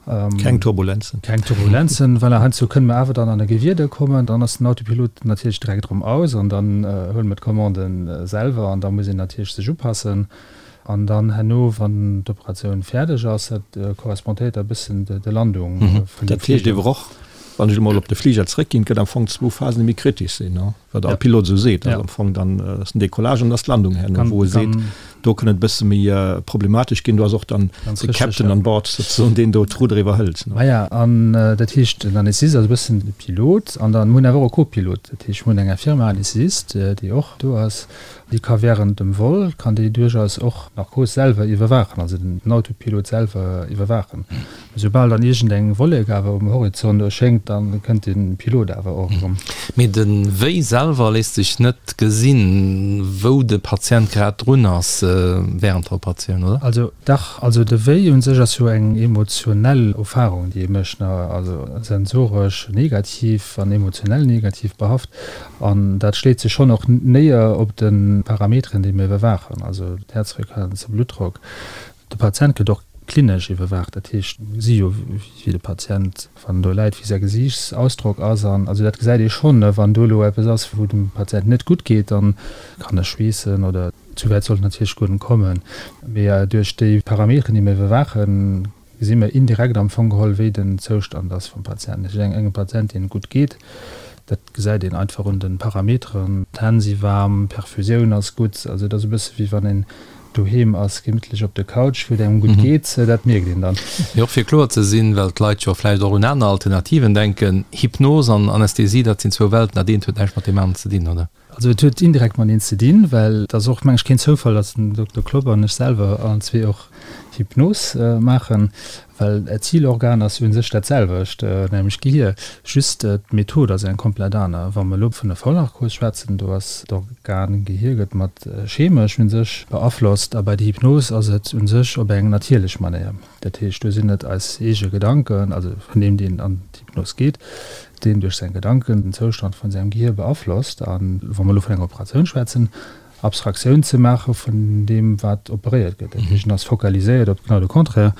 Keng Turbulenzen. Keng Turbulenzen, voilà. Heiansdo kënne mer awer dann an e Gewieder kommen, dann ass den Autopilot natierlech direkt erëm aus an dann huele mer d'Commande selwer an da muss een natierlech sech upassen. An dann herno, wann d'Operatioun fäerdeg ass, dat correspondéiert da e bëssen der Landung vun dem Fliger. Dat heescht ewer och, wann ech emol op de Fliger zréckginn, et gëtt am Fong zwou Phasen, déi méi kritesch sinn, wat all Pilot esou seet, ass am Fong dann ass den Decollage an ass d'Landung herno, wou e seet, do kënn et e bësse méi problematesch ginn. Do ass och dann de Captain an Bord souzesoen, deen do d'Rudder iwwerhëlt. Maja, an dat heescht, den Anästhesist ass e bëssen de Pilot an dann, mir hunn awer och e Co-Pilot, dat heescht, mir hunn eng Infirmière-Anästhesist, déi och do ass. Déi ka während dem Vol, kann déi duerchaus och d'Narkos selwer iwwerwaachen, also den Autopilot selwer iwwerwaachen. Soubal dann iergendeng Wollek awer um Horizont erschéngt, da kënnt de Pilot awer och erëm. Mee de Wéi selwer léisst sech net gesinn, wou de Patient grad drun ass während der Operatioun, oder? Also dach, also de Wéi un sech ass jo eng emotionell Erfarung, déi ee mécht, also sensoresch negativ an emotionell negativ behaft. An dat schléit sech schonn och néier op de Parameteren, déi mir iwwerwaachen, also d'Häerzfrequenz, de Bluttdrock. De Patient gëtt och klinesch iwwerwaacht, dat heescht, mir gesi jo, wéi de Patient, wann en do läit, wéi säi Gesiichtsausdrock ass. An also dat gesäit ee schonn, wann do elo eppes ass, wou dem Patient net gutt geet, dann kann e schweessen oder zu wäit sollt et natierlech guer net kommen. Mee duerch déi Parameteren, déi mir iwwerwaachen, gesi mir indirekt am Fong geholl, wéi den Zoustand ass vum Patient. Dat heescht, engem Patient, deem et gutt geet, dat gesäit een einfach un de Parameteren, d'Hänn si waarm, d'Perfusioun ass gutt. Also et ass e bësse wéi wann een doheem ass, gemittlech op der Couch, wou et engem gutt geet, dat mierkt een dann. Mee och fir kloer ze sinn, well d'Leit jo vläicht och un aner Alternativen denken, Hypnos an Anästhesie, dat sinn zwou Welten, dat eent huet näischt mat deem aneren ze dinn, oder? Also et huet indirekt mateneen ze dinn, well et ass och, meng ech, keen Zoufall, datt den Dokter Klopp an ech selwer allen zwee och Hypnos maachen, well d'Zilorgan ass u sech dat selwecht, nämlech d'Gehir, just d'Method ass eng komplett aner. Wa mer elo vun der Vollnarkos schwätzen, do ass d'Organ Gehir gëtt mat chemesch u sech beaflosst a bei der Hypnos ass et u sech op eng natierlech Manéier. Dat heescht, do sinn et eis eege Gedanken, also vun deem, deen an d'Hypnos geet, deen duerch seng Gedanken den Zoustand vun sengem Gehir beaflosst. A wa mer elo vun enger Operatioun schwätzen, Abstraktioun ze maache vun deem, wat operéiert gëtt. Dat heescht, en ass fokaliséiert op genau de Contraire.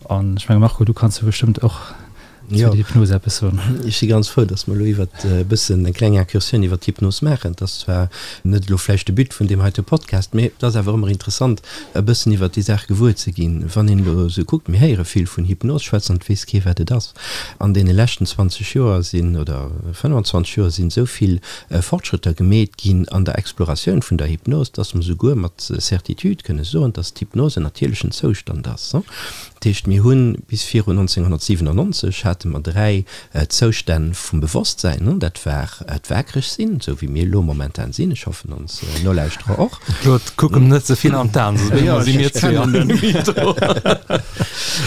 An ech menge Marco, du kanns jo bestëmmt och zu der Hypnos eppes soen. Ech si ganz frou, datt mer elo iwwert e bëssen eng kleng Incursioun iwwert d'Hypnos maachen. Et ass zwar net elo vläicht de But vun deem heite Podcast, mee et ass awer ëmmer interessant, e bëssen iwwert déi Saach gewuer ze ginn. Wann een elo esou kuckt, mir héiere vill vun Hypnos schwätzen an et weess kee wat et ass. An deene leschten 20 Joer sinn, oder 25 Joer sinn esou vill Fortschrëtter gemeet ginn an der Exploratioun vun der Hypnos, dass mer souguer mat Certitude kënne soen, dass d'Hypnos en natierlechen Zoustand ass. Dat heescht, mir hu bis virun 1997 hate mer 3 Zoustänn vum Bewosstsäin. Dat war d'Waakreg sinn, esou wéi mir elo momentan sinn, ech hoffen ons Nolauschterer och. Claude, kuck em net ze vill an d'Aen, soss brénge si mir zwee an den Mytho.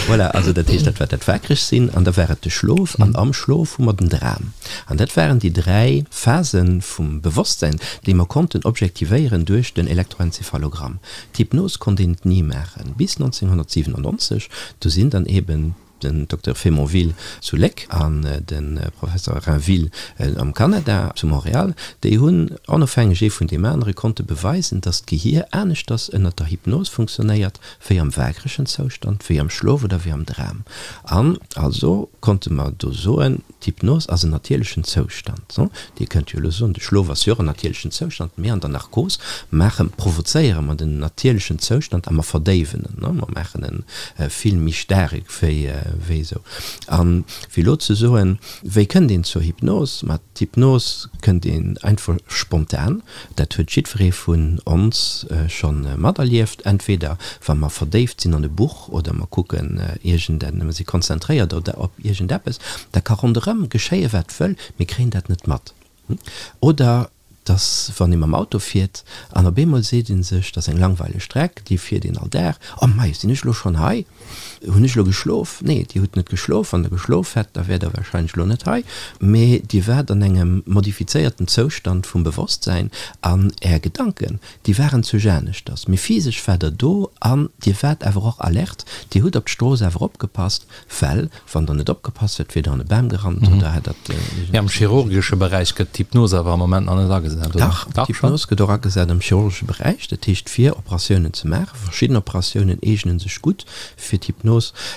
Voilà, also dat heescht, dat war dat Waakreg sinn an da war et de Schlof an am Schlof hu mer den Dram. An dat waren déi 3 Phase vum Bewosstsäin, déi mer konnten objektivéieren duerch den Elektroenzephalogramm. D'Hypnos konnt een et ni maachen, bis 1997, do sinn dann eben den Dokter Faymonville zu Léck an de Professor Rainville am Kanada, zu Montréal, déi hunn onofhängeg ee vun deem anere konnte beweisen, datt d'Gehier aneschters ënnert der Hypnos funktionéiert wéi am waakregen Zoustand, wéi am Schlof oder wéi am Dram. An also konnte mer do soen, D'Hypnos ass en natierlechen Zoustand. Dir kënnt jo elo soen, de Schlof ass jo och en natierlechen Zoustand, mee an der Narkos maache, provozéiere mer den natierlechen Zoustand a mer verdéiwen en, mer maachen e vill méi staark wéi wéi esou. A fir elo ze soen, wéi kënnt een zur Hypnos? Ma d'Hypnos kënnt een einfach spontan, dat huet jiddweree vun ons scho materlieft, entweder wa mer verdéift sinn an e Buch, oder mer kucken iergend en, mer si konzentréiert oder op iergendeppes, da ka ronderëm geschéie wat wëll, mir kréien dat net mat. Oder dass wann ee mam Auto fiert an op eemol seet ee sech, dat ass eng langweileg Streck, déi fiert een all Dag, oh mei, sinn ech elo schonn hei? Hunn ech elo geschlof? Nee, Dir hutt net geschlof. Wann Der geschlof hätt, da wäert Der warscheinlech elo net hei, mee Dir waart an engem modifizéierten Zoustand vum Bewosstsäin an Är Gedanken, Déi waren zu Janeschters, mee physesch war der do an Dir waart awer och alert, Dir hutt op d'Strooss awer opgepasst, well wann Der net opgepasst hätt, wier Der an e Bam gerannt oder hätt der. Mee am chirurgesche Beräich gëtt d'Hypnos awer am Moment nach net agesat, oder? Dach, d'Hypnos gëtt och agesat am chirurgesche Beräich, dat heescht fir Operatiounen ze maachen. Verschidden Operatiounen eegene sech gutt fir d'Hypnos.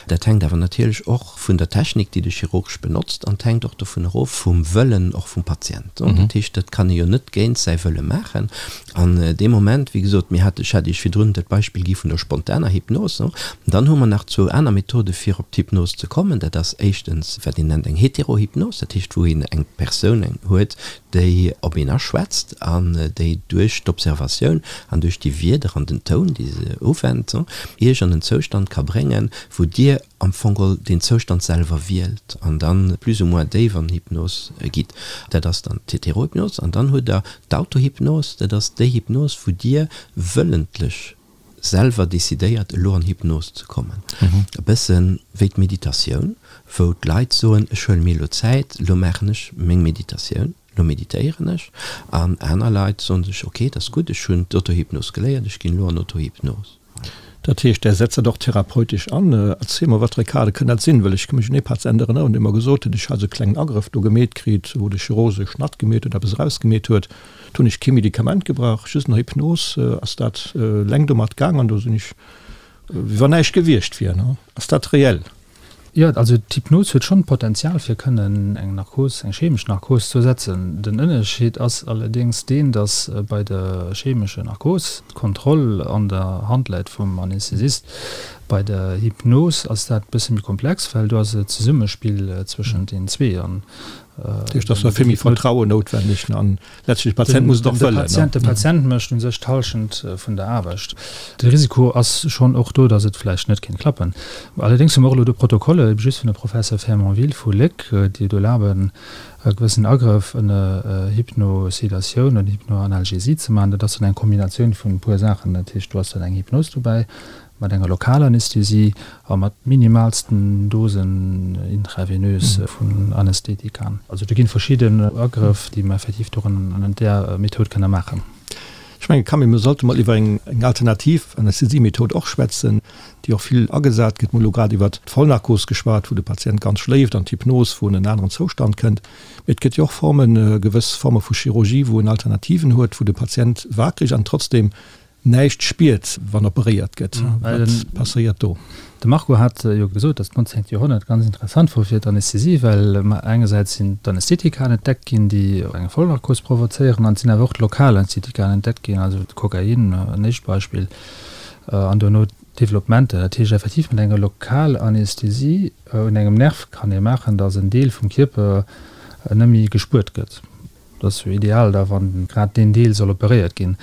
Dat hänkt awer natierlech och vun der Technik, déi de Chirurg benotzt, an et hänkt och dovun erof, vum Wëllen och vum Patient. Dat heescht, dat kann ee jo net géint säi Wëlle maachen. An dee Moment, wéi gesot, mir hate, ech hat Iech virdrun dat Beispill gi vun der spontaner Hypnos, dann hu mer nach zwou aner Methode fir op d'Hypnos ze kommen. Dat ass éischtens, wat een nennt eng Heterohypnos, dat heescht, wou een eng Persoun huet, déi op een aschwätzt an déi duerch d'Observatioun an duerch déi Wierder an den Toun, déi se uwennt, Iech an en Zoustand ka bréngen. wou Dir am Fong geholl deen Zoustand selwer wielt an dann plus ou moins déif an Hypnos gitt. Dat ass dann d'Heterohypnos. An dann hutt Der d'Autohypnos, dat ass déi Hypnos, wou Dir wëllentlech selwer decidéiert, elo an Hypnos ze kommen. E bësse wéi d'Meditatioun, wou d'Leit soen, ech huele mir elo Zäit, elo maachen ech meng Meditatioun. Lo meditéieren ech. An aner Leit soen sech, ok, dat ass gutt, ech hunn d'Autohypnos geléiert, ech ginn elo an Autohypnos. Dat heescht, Där setzt dat och therapeutesch an. Erziel mol, wat fir e Kader kënn dat sinn? Well ech ka mech un ee Patient erënneren, dee mer gesot huet, ech hat esou e klengen Agrëff do gemeet kritt, wou de Chirurg esou e Schnatt gemeet huet, eppes erausgemeet huet. Do hunn ech kee Medikament gebraucht, just no Hypnos ass dat eleng domat gaang an do sinn ech wéi wann näischt gewiescht wier. Ass dat reell? Jo, also d'Hypnos huet schonn d'Potenzial fir kënnen eng Narkos, eng chemesch Narkos ze ersetzen. Den Ënnerscheed ass allerdéngs deen, datt bei der chemescher Narkos d'Kontroll an der Hand läit vum Anästhesist. Bei der Hypnos ass dat e bësse méi komplex, well do ass et e Zesummespill zwëschent den zwee. An Dat heescht, et ass da vill méi Vertrauen noutwenneg an Letztlech, de Patient muss et och wëllen. De Patient mécht u sech d'Hallschent vun der Aarbecht. De Risiko ass schonn och do, datt et vläicht net kéint klappen. Allerdéngs hu mer och elo do Protokolle, ebe just vun der Professor Fermonville vu Léck, déi et erlaben, e gewëssen Agrëff ënner Hypnosedatioun oder Hypnoanalgesie ze maachen. Dat ass dann eng Kombinatioun vun e puer Saachen. Dat heescht, do ass dann eng Hypnos dobäi, Mat enger Lokalanästhesie a mat minimalsten Dosen intravenös vun Anästhetika. Also do ginn verschidden Agrëff, déi mer effektiv do ënnert där Method kënne maachen. Ech mengen, Camille, mir sollte mol iwwer eng alternativ Anästhesiemethod och schwätzen, déi och vill agesat gëtt. Mir hu lo grad iwwert d'Vollnarkos geschwat, wou de Patient ganz schléift, an d'Hypnos, wou en en aneren Zoustand kënnt. Mee et gëtt jo och Formen, gewëss Forme vu Chirurgie, wou en Alternativen huet, wou de Patient wakereg an trotzdem näischt spiert, wann operéiert gëtt. Wat passéiert do? De Marco hat jo gesot, datt d'nonzéngt Joerhonnert ganz interessant wor fir d'Anästhesie, well engersäits sinn d'Anästhetika entdeckt ginn, déi eng Vollnarkos provozéieren, an et sinn awer och d'Lokalanästhetika entdeckt ginn, also de Kokain, en éischt Beispill, an dono d'Developpementer. Dat heescht effektiv, mat enger Lokalanästhesie un engem Nerv kann ee maachen, datt en Deel vum Kierper net méi gespuert gëtt. Dat ass jo ideal da wann grad deen Deel soll operéiert ginn.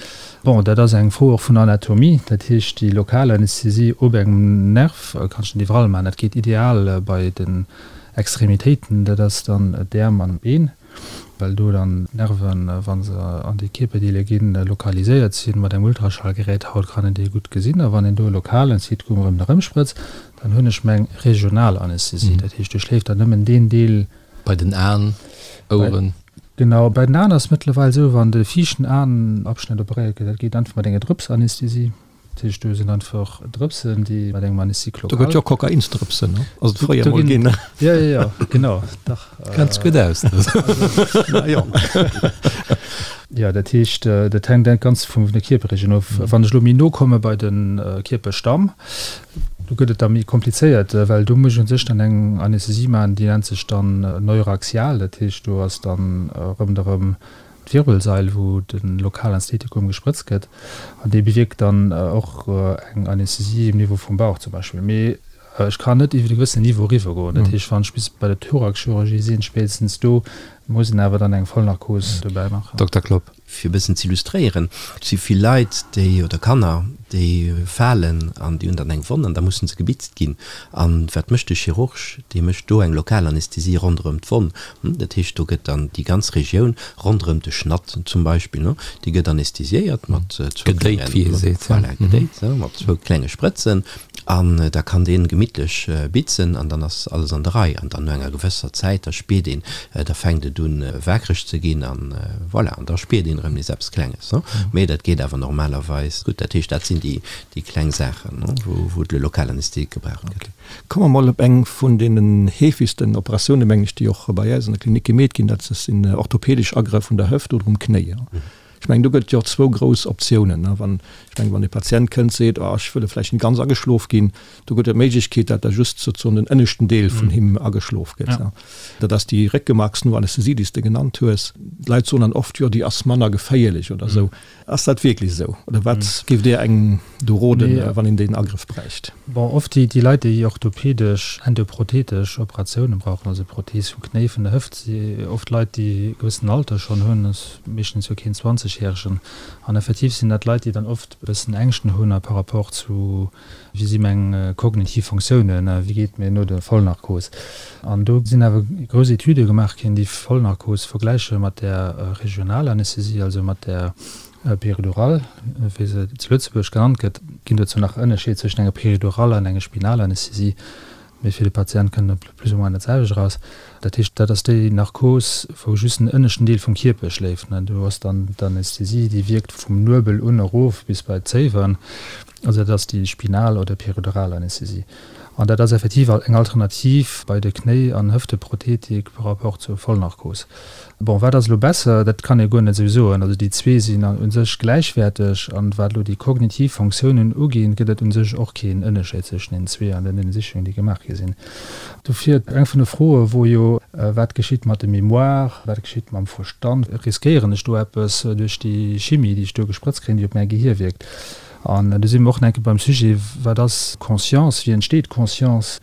Bon, dat ass eng Fro och vun Anatomie. Dat heescht, déi lokal Anästhesie op engem Nerv kanns de net iwwerall maachen. Dat geet ideal bei den Extremitéiten, dat ass dann d'Äerm an d'Been, well do dann d'Nerven, wa se an déi Kierperdeeler ginn, lokaliséiert sinn. Mat engem Ultraschallgerät haut kann een déi gutt gesinn. A wann een do e lokalen Anästhetikum erëm erëmsprëtzt, dann hunn ech meng regional Anästhesie. Dat heescht, do schléift dann nëmmen deen Deel, Bei den Aen, Oueren. Genau, bei den Aen ass et mëttlerweil esou, wann de viischten Aenabschnëtt operéiert gëtt, dat geet einfach mat enger Drëpsanästhesie. Dat heescht, do sinn einfach Drëpsen, déi mat engem Anesthésique local. Do gëtt jo Kokainsdrëpsen, ne? Ass et fréier mol ginn. Jo, jo, jo, genau, dach. Kenns gutt aus, du. Na jo. Jo, dat heescht, dat hänkt ganz vun der Kierperregioun of. Wann ech elo méi no komme bei de Kierperstamm, Do gëtt et da méi komplizéiert, well do muss ech u sech dann eng Anästhesie maachen, déi nennt sech dann neuraxial. Dat heescht, do ass dann ronderëm d'Wirbelsail, wou de Lokalanästhetikum gesprëtzt gëtt, an dee bewierkt dann och eng Anästhesie um Niveau vum Bauch zum Beispill. Mee ech kann net iwwer e gewëssenen Niveau eriwwer goen. Dat heescht, wann ech bis bei der Thoraxchirurgie sinn, spéitstens do muss een awer dann eng Vollnarkos dobäi maachen. Dokter Klopp. Fir e bëssen z'illustréieren, Et si vill Leit, déi, oder Kanner, déi falen an déi hunn dann eng Wonn an da mussen se gebitzt ginn. A wat mécht de Chirurg? Dee mécht do eng Lokalanästhesie ronderëm d'Wonn. Dat heescht, do gëtt dann déi ganz Regioun ronderëm de Schnatt zum Beispill, déi gëtt anästhesiéiert mat zwou klengen, Gedéit, wéi ee seet, voilà, gedéit, mat zwou klenge Sprëtzen. An da kann deen gemittlech bitzen an dann ass alles an der Rei. An dann no enger gewësser Zäit, da spiert een, da fänkt et un waakreg ze ginn an voilà, an da spiert een erëm nees eppes Klenges. Mee dat geet awer normalerweis gutt. Dat heescht, dat sinn déi, déi kleng Saachen, wou, wou de Lokalanästhetik gebraucht gëtt. Komme mer mol op eng vun deenen heefegsten Operatiounen, mengen ech, déi och bei äis an der Klinik gemeet ginn, dat sinn orthopedesch Agrëff un der Hëft oder um Knéi. Ech mengen, do gëtt et jo och zwou grouss Optiounen. Wann, ech mengen, wann e Patient kënnt, seet, oh, ech wëll vläicht net ganz ageschlof ginn, do gëtt et d'Méiglechkeet, dat da just sozusagen den ënneschten Deel vun him ageschlof gëtt. Dat ass déi Réckemarksnoanästhesie, déi s de genannt hues. D'Leit soen dann oft, jo, déi ass manner geféierlech oder esou. Ass dat wierklech esou? Oder wat géift Dir engem do roden, wann een deen Agrëff bräicht? Bon, oft déi Leit, déi orthopedesch, endoprothetesch Operatiounen brauchen, also Prothees vum Knéi, vun der Hëft, si oft Leit, déi e gewëssenen Alter schonn hunn. Meeschtens jo keen 20. 60 järegen. An effektiv sinn dat Leit, déi dann oft e bëssen Ängschten hunn a par rapport zu, wéi si meng kognitiv Fonctiounen, wéi geet et mir no der Vollnarkos. An do sinn awer grouss Etüde gemaach ginn, déi Vollnarkos vergläiche mat der Regionalanästhesie, also mat der Péridurale, wéi se zu Lëtzebuerg genannt gëtt. Ginn dozou nach Ënnerscheed zwëschen enger Péridurale an enger Spinalanästhesie. Mee fir de Patient kënnt et plus ou moins dat selwecht eraus. Dat heescht, dat ass déi Narkos, wou just den ënneschten Deel vum Kierper schléift. Do ass dann d'Anästhesie, déi wierkt vum Nuebel un erof bis bei d'Zéiwen. Also dat ass déi spinal oder peridural Anästhesie. An dat ass effektiv eng Alternativ bei de Knéi an Hëfteprothetik par rapport zur Vollnarkos. Bon, wat ass elo besser? Dat kann ee guer net esou soen. Also déi zwee sinn u sech gläichwäerteg. An wat elo déi kognitiv Fonctiounen uginn, gëtt et u sech och keen Ënnerscheed zwëschen deenen zwee an den Ënnersichungen, déi gemaach gi sinn. Dofir eng vun de Froe wor jo, Wat geschitt mat de Mémoire, wat geschitt mam Verstand? Riskéieren ech do eppes duerch déi Chimie, déi ech do gesprëtzt kréien, déi op mäi Gehier wierkt? An do si mer och nach eng Kéier beim Sujet, Wat ass Conscience? Wéi entsteet Conscience?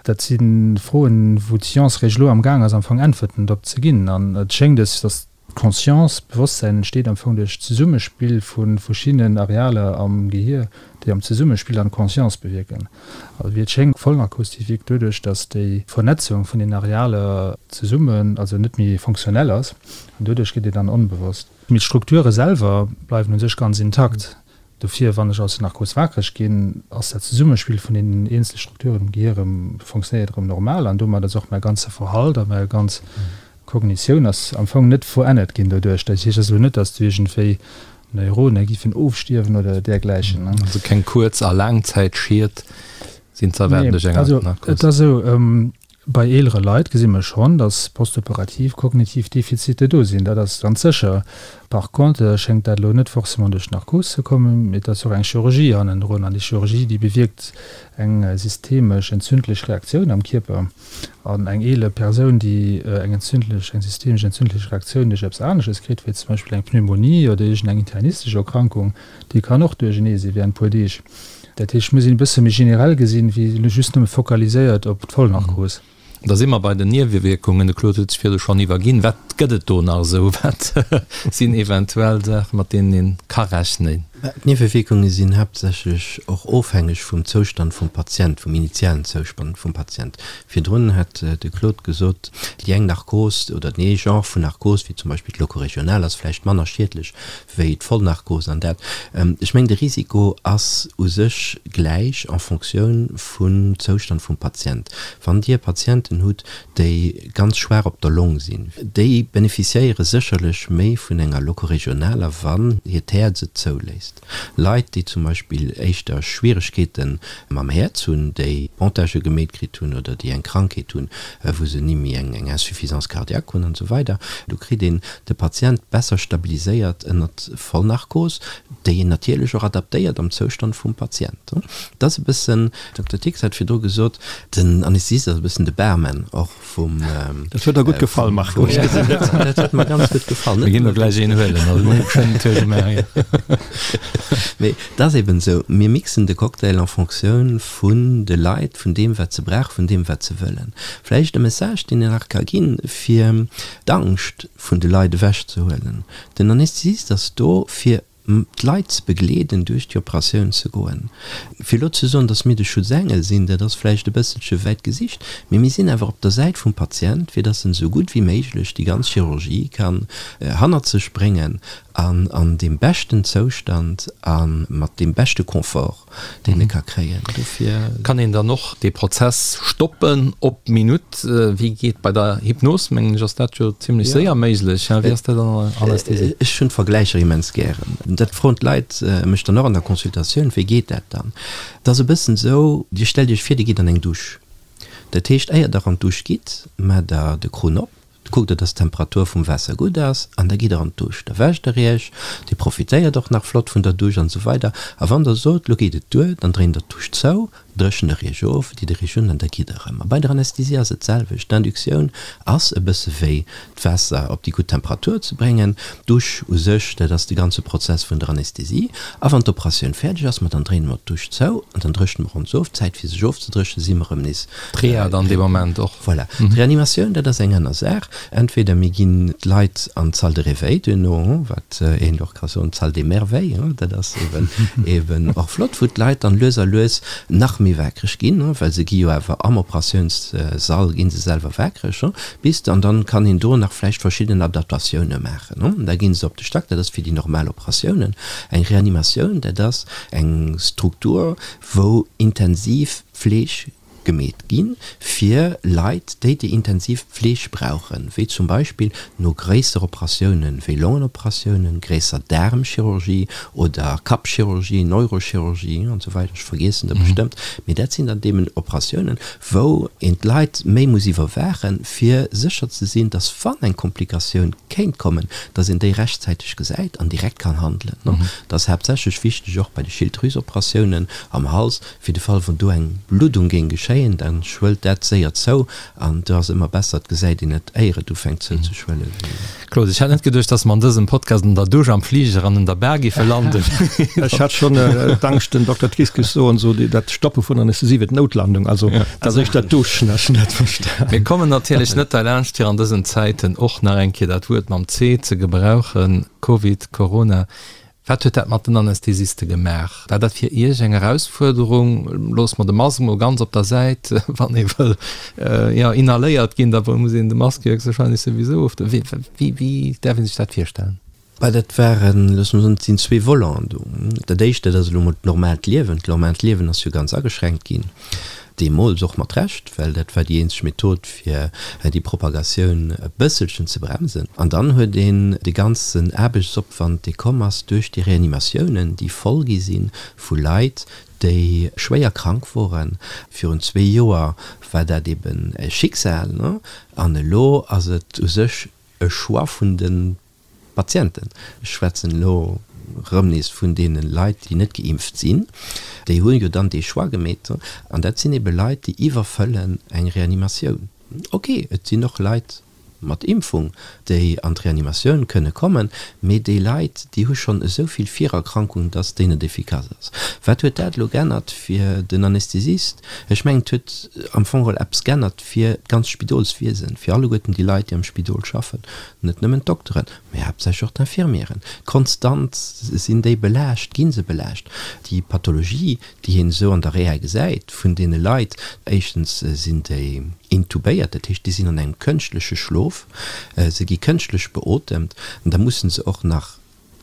Dat si Froen, wou d'Science réischt elo am Gaang ass, am Fong Äntwerten drop ze ginn. An et schéngt es, datt d'Conscience, d'Bewosstsäin entsteet am Fong duerch d'Zesummespill vu verschiddenen Arealer am Gehier, déi am Zesummespill dann d'Conscience bewierken. Also wéi et schéngt, Vollnarkos, déi wierkt doduerch, datt déi Vernetzung vun den Arealer zesummen, also net méi fonctionnel ass, an doduerch gëtt een dann onbewosst. Mee d'Strukture selwer bleiwen u sech ganz intakt. Dofir, wann ech aus der Narkos wakereg ginn, ass dat Zesummespill vun deenen eenzele Strukturen am Gehier erëm, fonctionnéiert erëm normal an domat ass och mäi ganze Verhalt a mäi ganz Kognitioun ass am Fong net verännert ginn doduerch. Dat heescht also net, datt do iergendwéi Neurone giffen ofstierwen oder dergläichen. Also keng Kuerz a Laangzäitschied sinn ze erwaarden duerch eng Narkos? Also et ass esou, Bei eelere Leit gesi mer schonn, dass postoperativ kognitiv Defizite do sinn, dat ass ganz sécher. Par contre schéngt dat elo net forcément duerch d'Narkos ze kommen, mee et ass och eng Chirurgie hannendrun an déi Chirurgie, déi bewierkt eng systemesch entzündlech Reaktioun am Kierper. An eng eeler Persoun, déi eng entzündlech, eng systemesch entzündlech Reaktioun duerch eppes anesches kritt, wéi zum Beispill eng Pneumonie oder iergendeng internistesch Erkrankung, déi kann och duerchenee si während e puer Deeg. Dat heescht, et muss een e bësse méi generell gesinn, wéi just nëmme fokaliséiert op d'Vollnarkos. Da si mer bei den Niewewierkungen. De Claude huet sech virdu schonn iwwerginn. Wat gëtt et do nach esou? Wat sinn eventuell Saachen, mat deenen ee ka rechnen? D'Niewewierkunge sinn haaptsächlech och ofhängeg vum Zoustand vum Patient, vum initialen Zoustand vum Patient. Virdrun hat de Claude gesot, déi eng Narkos oder deen ee Genre vun Narkos, wéi zum Beispill d'Locoregionale, ass vläicht manner schiedlech wéi d'Vollnarkos an dat. Ech mengen, de Risiko ass u sech gläich en Fonctioun vum Zoustand vum Patient. Wann Dir Patienten hutt, déi ganz schwaach op der Long sinn, déi beneficiéiere sécherlech méi vun enger locoregionaler, wann hiert Häerz et zouléisst. Leit, déi zum Beispill éischter Schwieregkeete mam Häerz hunn, déi Pontagë gemeet kritt hunn oder déi eng Krankheet hunn, wou se ni méi eng Insuffisance cardiaque hunn an esou weider, do kritt een de Patient besser stabiliséiert ënnert Vollnarkos, déi een natierlech och adaptéiert am Zoustand vum Patient. Dat ass e bëssen, Dokter Tix hat virdru gesot, den Anästhesist ass e bëssen de Barman och vum. Dat huet der gutt gefall, Marco. Dat huet mer ganz gutt gefall. Mir ginn der gläich een huelen, also mir hu schonn en Tour gemaach, jo. Mee et ass eben esou, mir mixen de Cocktail en Fonctioun vun de Leit, vun deem wat se brauchen, vun deem wat se wëllen. Vläicht e Message, deen een nach ka ginn, fir d'Angscht vun de Leit ewech ze huelen. Den Anästhesist ass do fir d'Leit ze begleeden duerch déi Operatioun ze goen. Fir elo ze soen, datt mir de Schutzengel sinn, dat ass vläicht e bësselche wäit gesicht, mee mir sinn awer op der Säit vum Patient, fir datt en esou gutt wéi méiglech déi ganz Chirurgie kann hannert sech bréngen an an deem beschten Zoustand a mat deem beschte Confort. deen e ka kréien. Dofir. Kann een dann och dee Prozess stoppen op d'Minutt? Wéi geet bei der Hypnos, mengen ech, ass dat jo zimlech séier méiglech. Wéi ass dat an der Anästhesie? Ech hunn d'Vergläicher immens gären. Dat froen d'Leit mech dann och an der Consultatioun, Wéi geet dat dann? Et ass e bëssen esou, Dir stellt Iech vir, Dir gitt an eng Dusch. Dat heescht, éier Der an d'Dusch gitt, maacht Der de Krunn op, Kuckt der, dass d'Temperatur vum Waasser gutt ass an da gitt der an d'Dusch. Da wäscht der iech, dir profitéiert och nach flott vun der Dusch an esou weider. A wann der sot, lo geet et duer, dann dréint der d'Dusch zou. Dréchent der iech of, ditt der iech un an da gitt der erëm. A bei der Anästhesie ass et d'selwecht. D'Induktioun ass e bësse wéi d'Waasser op déi gutt Temperatur ze bréngen. D'Dusch u sech, dat ass de ganze Prozess vun der Anästhesie. A wann d'Operatioun fäerdeg ass, ma dann dréine mer d'Dusch zou an dann dréchne mer ons of. D'Zäit fir sech ofzedréchnen, si mer erëm nees. D'Reha dann dee Moment och. Voilà. D'Reanimatioun, dat ass eng aner Saach. Entweder mir ginn d'Leit an d'Salle de réveil duerno, wat een och ka soen, d'Salle des merveilles, dat ass eben eben och flott, wou d'Leit dann lues a lues nach méi waakreg ginn, well se gi jo awer am Operatiounssall gi se selwer waakreg, bis an dann kann een do nach vläicht verschidden Adaptatioune maachen. Da gi se op de Stack, dat ass fir déi normal Operatiounen. Eng Reanimatioun, dat ass eng Struktur, wou intensiv Pfleg gemeet gi fir Leit, déi déi intensiv Pfleg brauchen, wéi zum Beispill no gréisser Operatiounen, wéi Longen-Operatiounen, gréisser Daarmchirurgie oder Kappchirurgie, Neurochirurgie an esou weider, ech vergiessen der bestëmmt, mee dat sinn dann deemn Operatiounen, wou een d'Leit méi muss iwwerwaachen, fir sécher ze sinn, dass wann eng Komplikatioun kéint kommen, dass een déi rechtzäiteg gesäit an direkt kann handelen. Dat ass haaptsächlech wichteg och bei de Schilddrüsoperatiounen am Hals, Fir de Fall wou do eng Bluddung géing geschéien, da schwëllt dat séier zou an do ass ëmmer besser, et gesäit een et éier et ufänkt zouzeschwëllen. Claude, ech hat net geduecht, dass mer an dësem Podcast an der Dusch, am Fliger an an der Bar géife landen. Ech hat schonn d'Angscht, den Dokter Tris géif soen, so dat Stoppe vun der Anästhesie wier d'Noutlandung, also dat ass éischter d'Dusch, ech hunn dat verstan. Mir kommen natierlech net derlaanscht, fir an dësen Zäiten och nach eng Kéier dat Wuert mam C ze gebrauchen, Covid, Corona. Wat huet dat mat den Anästhesiste gemaach? War dat fir Iech eng Erausfuerderung? Loosse mer de Mask mol ganz op der Säit, wann ee wëll jo inhaléiert ginn, da muss een de Mask jo héchstwahrscheinlech souwisou of. Wéi, wéi däerf ee sech dat virstellen? Bah, dat waren, loosse mer soen, et sinn zwee Voleten do. Dat éischt, dat ass elo mol d'normaalt Liewen. D'normaalt Liewen ass jo ganz ageschränkt ginn. Deemools och mat Recht, well dat war déi eenzeg Method, fir déi Propagatioun e bësselchen ze bremsen. An dann huet een de ganzen Aarbechtsopwand, dee komm ass duerch déi Reanimatiounen, déi voll gi si vu Leit, déi schwéier krank woren. Virun zwee Joer war dat eben e Schicksal, an elo ass et u sech e Choix vun de Patienten, ech schwätzen elo erëm nees vun deene Leit, déi net geimpft sinn, déi hu jo dann dee Choix gemeet. An dat sinn ebe Leit, déi iwwerfëllen eng Reanimatioun. Ok, et sinn och Leit mat Impfung, déi an d'Reanimatioun kënne kommen, mee déi Leit, déi hu schonn esou vill Virerkrankungen, dass déi net efficace ass. Wat huet dat elo g'ännert fir den Anästhesist? Ech mengen, et huet am Fong geholl eppes g'ännert fir d'ganzt Spidolswiesen, fir alleguerten déi Leit, déi am Spidol schaffen. Net nëmmen d'Dokteren, mä haaptsächlech och d'Infirmieren. Konstant sinn déi belaascht, gi se belaascht. Déi Pathologie, déi een esou an der Reha gesäit vun deene Leit, éischtens sinn déi intubéiert, dat heescht, déi sinn an engem kënschtleche Schlof, se gi kënschtlech beotemt, an da musse se och nach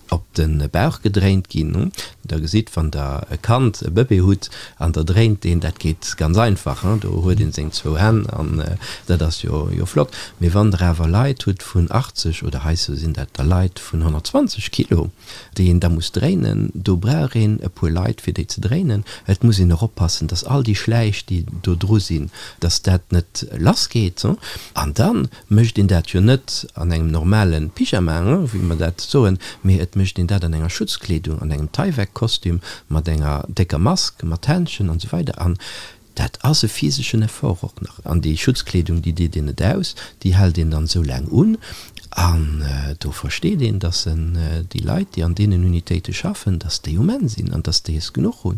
op de Bauch gedréint ginn. Der gesitt, wann der e Kand, e Bëbee hutt an der dréint deen, dat geet ganz einfach, do huet een seng zwou Hänn an dat ass jo jo flott. Mee wann der awer Leit hutt vun 80 oder hei sou sinn dat der Leit vun 120 Kilo, déi een da muss dréinen, do brauch een e puer Leit fir déi ze dréinen. Et muss een och oppassen, dass all déi Schläich, déi do dru sinn, dass dat net lass geet. An dann mécht een dat jo net an engem normale Pyjama, wéi mer dat soen, mee et mécht een dat an enger Schutzkleedung, an engem Tyvek-Kostüm, mat enger décker Mask, mat Händschen an esou weider. An dat ass e physeschen Effort och nach. An déi Schutzkleedung, déi deet een net aus, déi hält een dann esou laang un. An do versteet een, dass déi Leit, déi an deenen Unitéite schaffen, dass déi um Enn sinn an dass déi es genuch hu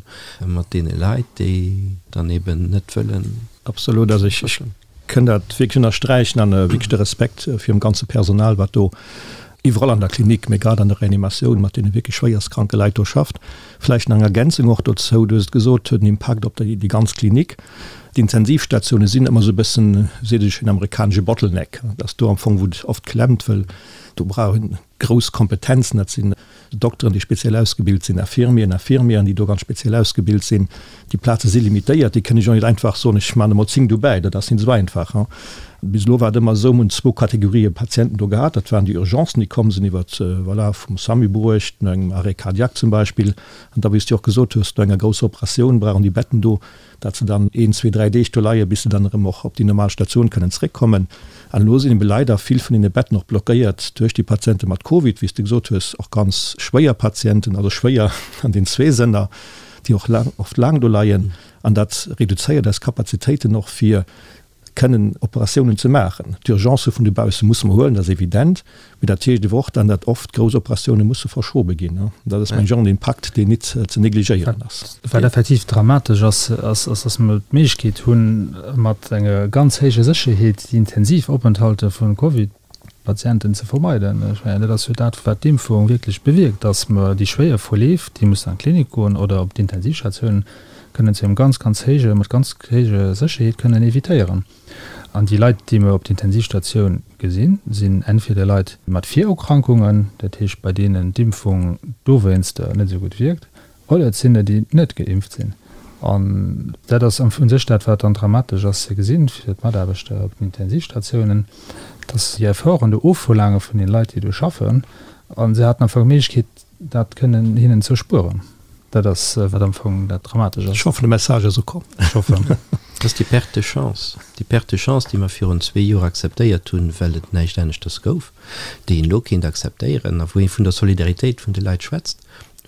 mat deene Leit, déi dann eben net wëllen. Absolut. Also ech Kënn dat wierklech ënnersträichen an wierklech de Respekt virum ganze Personal, wat do iwwerall an der Klinik, mee grad an der Reanimatioun mat deene wierklech schwéierstkranke Leit do schafft. Vläicht nach eng Ergänzung och dozou, Du hues et gesot, huet en Impakt op déi ganz Klinik. D'Intensivstatioune sinn ëmmer esou e bëssen, seet ech, en amerikanesche Bottleneck. Dat ass do am Fong, wou et oft klemmt, wëll do brauch een grouss Kompetenzen, dat sinn Dokteren, déi speziell ausgebilt sinn, Infirmieren, Infirmièren, déi do ganz speziell ausgebilt sinn. Déi Plaze si limitéiert, déi kënne ech och net einfach soen, ech maachen der mol 10 dobäi, dat ass net esou einfach. Bis elo war et ëmmer esou, mir hunn zwou Kategorië Patienten do gehat, dat waren déi Urgencen, déi komm sinn iwwer, voilà, vum SAMU bruecht, no engem Arrêt cardiaque zum Beispill, an da, wéi s de och gesot hues, no enger grousser Operatioun brauchen déi Betten do dat se dann een, zwee, dräi Deeg do leien, bis se dann erëm och op déi normal Statioun kënnen zréckkommen. An elo sinn ebe leider vill vun deene Betten och blockéiert duerch déi Patiente mat Covid, wéi s de gesot hues, och ganz schwéier Patienten, also schwéier an den zwee Sënner, déi och laang, oft laang do leien. An dat reduzéiert eis Kapazitéiten och fir kënnen Operatiounen ze maachen. D'Urgencë vun dobausse musse mer huelen, dat ass evident, mee dat heescht ewer och dann, datt oft grouss Operatioune musse verschobe ginn. Dat ass, mengen ech, och en Impakt, deen nit ze negligéieren ass. Wat effektiv dramatesch ass, ass, datt mer d'Méiglechkeet hunn, mat enger ganz héijer Sécherheet déi intensiv Openthalte vu Covid Patienten ze vermeiden. Ech mengen, dat ass jo dat, wat d'Impfung wierklech bewierkt, dass mer déi schwéier Verleef, déi mussen an d'Klinik goen oder op d'Intensivstatioun, kënnen zu engem ganz, ganz héije, mat ganz héijer Sécherheet kënnen évitéieren. An déi Leit, déi mer op d'Intensivstatioun gesinn, sinn entweder Leit mat Virerkrankungen, dat heescht bei deenen d'Impfung dowéinster net esou gutt wierkt, Oder et sinn der, déi net geimpft sinn. An dat ass am u sech dat, wat dann dramatesch ass ze gesinn fir d'Mataarbechter op den Intensivstatiounen, dass déi Efforten do ofverlaange vun den Leit, déi do schaffen, a se haten am Fong d'Méiglechkeet, dat kënnen hinnen ze erspueren. Dat ass, wat am Fong dat dramatesch ass. Ech hoffen, de Message ass ukomm. Ech hoffen. Dat ass déi Perte de chance, déi Perte de chance, déi mer virun zwee Joer akzeptéiert hunn, well et näischt aneschters gouf, déi een elo kéint akzeptéieren a wou ee vun der Solidaritéit vun de Leit schwätzt.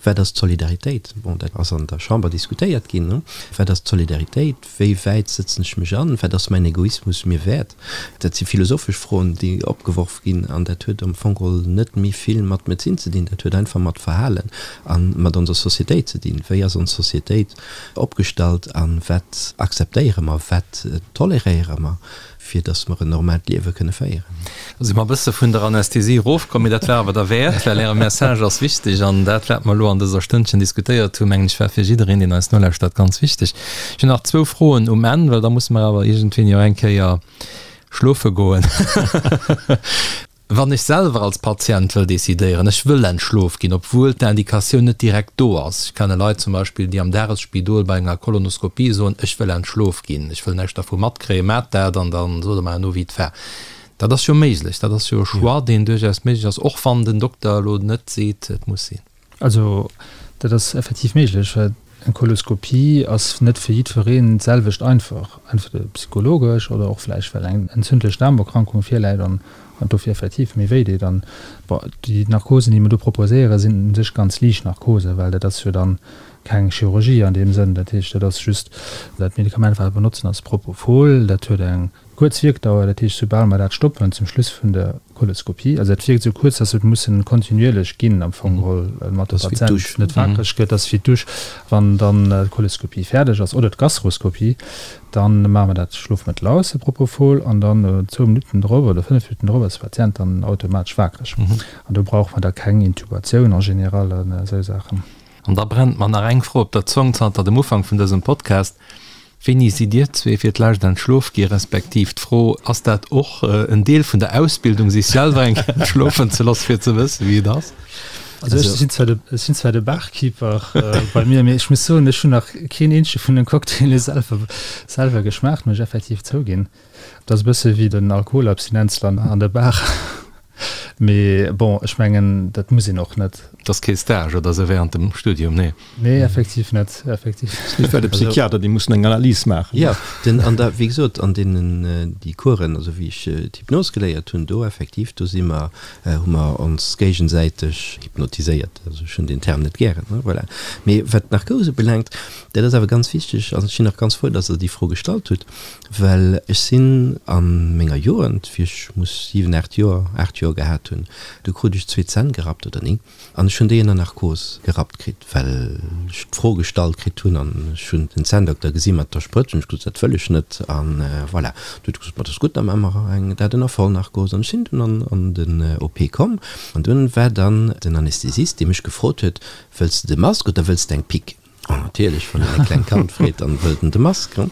Wat ass d'Solidaritéit? Bon, dat ass an der Chamber diskutéiert ginn. Wat ass d'Solidaritéit? Wéi wäit sëtzen ech mech an? Wat ass mäin Egoismus mir wäert? Dat si philosophesch Froen, déi opgeworf ginn. An dat huet am Fong geholl net méi vill mat Medezin ze dinn. Dat huet einfach mat Verhalen a mat onser Societéit ze dinn. Wéi ass ons Societéit opgestallt a wat akzeptéiere mer, wat toleréiere mer? fir dass mer en normaalt Liewe kënne féieren. Da si mer e bësse vun der Anästhesie erofkomm, mee dat war awer derwäert, well Äre Message ass wichteg an dat, wat mer elo an dëser Stënnchen diskutéiert hunn, mengen ech, war fir jiddereen, deen eis nolauschtert, ganz wichteg. Ech hunn nach zwou Froen um Enn, well da musse mer awer iergendwéini och eng Kéier schlofe goen. Wann ech selwer als Patient wëll decidéieren, ech wëll entschlof ginn, obwuel d'Indikatioun net direkt do ass, ech kenne Leit zum Beispill, déi am Dagesspidol bei enger Kolonoskopie soen, ech wëll entschlof ginn, ech wëll näischt dervu matkréien, maacht dat an da sot der mer herno wéi et war. Dat ass jo méiglech, dat ass jo e Choix, deen duerchaus méiglech ass, och wann den Dokter elo net seet, et muss sinn. Also dat ass effektiv méiglech, well eng Koloskopie ass net fir jiddwereen d'selwecht einfach, entweder psychologesch oder och vläicht well eng entzündlech Daarmerkrankung virläit an dofir effektiv méi wéi deet. An bon, déi Narkosen, déi mer do proposéieren, sinn u sech ganz liicht Narkosen, well dat ass jo dann keng Chirurgie an deem Sënn. Dat heescht, dat ass just dat Medikament, wat mer benotzen, ass Propofol, dat huet eng Kuerz Wierkdauer, dat heescht soubal mer dat stoppen zum Schluss vun der Koloskopie, also dat wierkt esou kuerz, dass et mussen kontinuierlech ginn am Fong geholl, mat de Patient net wakereg gëtt, ass wéi d'Dusch. Wann dann d'Koloskopie fäerdeg ass oder d'Gastroskopie, dann maache mer dat Schlofmëttel aus, de Propofol, an dann zwou Minutten drop oder 5 Minutten drop ass de Patient dann automatesch wakereg. An do brauche mer da keng Intubatioun en général an esou Saachen. An da brennt mer nach eng Fro op der Zong zanter dem Ufank vun dësem Podcast, Wéini sidd Dir zwee fir d'lescht entschlof gi, respektiv d'Fro, ass dat och en Deel vun der Ausbildung, sech selwer eng Kéier entschlofen ze loosse fir ze wëssen, wéi et ass? Also ech sinn zwar de, ech sinn zwar de Barkeeper bei mir, mee ech muss soen, ech hunn nach keen eenzege vun den Cocktaile selwer, selwer geschmaacht, muss ech effektiv zouginn. Dat ass e bësse wéi den Alkoholabstinenzler an der Bar. Mee bon, ech mengen, dat muss een och net. Et ass kee Stage oder esou während dem Studium, nee? Nee, effektiv net, effektiv. Mee well de Psychiater, déi mussen eng Analys maachen. Jo, den, an da, wéi gesot, an deenen, déi Coursen, also wéi ech d'Hypnos geléiert hunn, do effektiv, do si mer, hu mer ons géigesäiteg hypnotiséiert. Also ech hunn deen Term net gären, ne, voilà. Mee wat d'Narkose ubelaangt, dat ass awer ganz wichteg, an ech sinn och ganz frou, dass Der déi Fro gestallt hutt, Well ech sinn a menger Jugend, wéi ech muss 7, 8 Joer, 8 Joer gehat hunn, du krut ech zwee Zänn gerappt oder néng, an ech hunn déi ënner Narkos gerappt kritt, well ech d'Fro gestallt kritt hunn an ech hunn den Zänndokter gesi mat der Sprëtz hunn ech gesot, dat wëll ech net an voilà. Du huet e gesot, ma dat ass gutt, da maache mer eng dat ënner Vollnarkos an ech sinn dunn an an den OP komm an dunn war dann den Anästhesist, dee mech gefrot huet, wëlls de de Mask oder wëlls de eng Pique? An natierlech, wann een e klengt Kand freet, dann wëllt en de Mask. An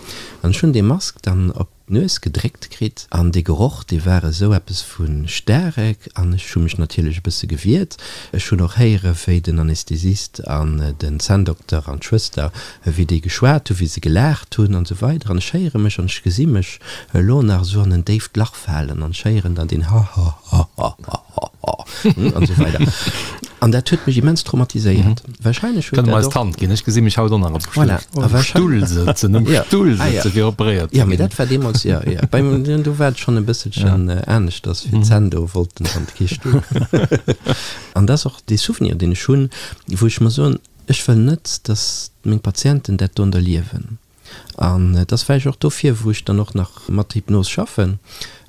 ech hunn dee Mask dann op d'Nues gedréckt kritt an dee Geroch, dee war esou eppes vu staarek an ech hu mech natierlech e bësse gewiert. Ech hunn och héiere wéi den Anästhesist an den Zänndokter an d'Schwëster, wéi déi geschwat hunn, wéi se gelaacht hunn an esou weider. An ech héiere mech an ech gesi mech elo nach esou an en déift Lach falen an ech héieren dann deen Ha-ha-ha-ha-ha. An esou weider. An dat huet mech immens traumatiséiert. Wahrscheinlech huet dat och. Kënne mer eis d'Hand ginn? Ech gesi mech haut och nach am Stull. Voilà. Am Stull sëtzen, am Stull sëtzen, fir operéiert ze ginn. Jo, mee dat war deemools, jo, jo. Bei mir, do war et schonn e bësselchen aneschters, fir d'Zänn do wollten dann kee Stull. An dat ass och dee Souvenir, deen ech hunn, wou ech mer soen, ech wëll net, datt meng Patienten dat do erliewen. An et ass vläicht och dofir, wou ech dann och nach mat Hypnos schaffen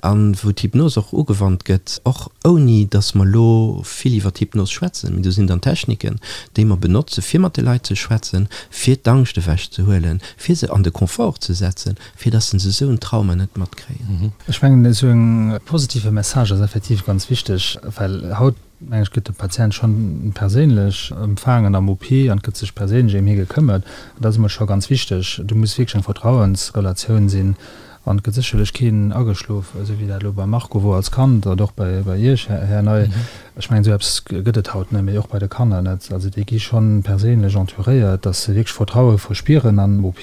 an wou d'Hypnos och ugewannt gëtt, och ouni datt mer elo vill iwwer d'Hypnos schwätzen, mee do sinn dann Techniken, déi mer benotze fir mat de Leit ze schwätzen, fir d'Angscht ewech ze huelen, fir se an de Confort ze setzen, fir datt se esou en Trauma net matkréien. Ech mengen, esou e positive Message ass effektiv ganz wichteg, well haut, mengen ech, gëtt de Patient schonn perséinlech empfaangen am OP an et gëtt sech perséinlech ëm hie gekëmmert. An dat ass emol scho ganz wichteg. Do muss wierklech eng Vertrauensrelatioun sinn an et gëtt sécherlech keen ageschlof, esou wéi dat elo beim Marco wor als Kand oder och bei bei Iech, Här Ney. Ech mengen, esou eppes gëtt et haut net méi, och bei de Kanner net. Also déi gi schonn perséinlech entouréiert, dass se wierklech Vertraue verspieren am OP.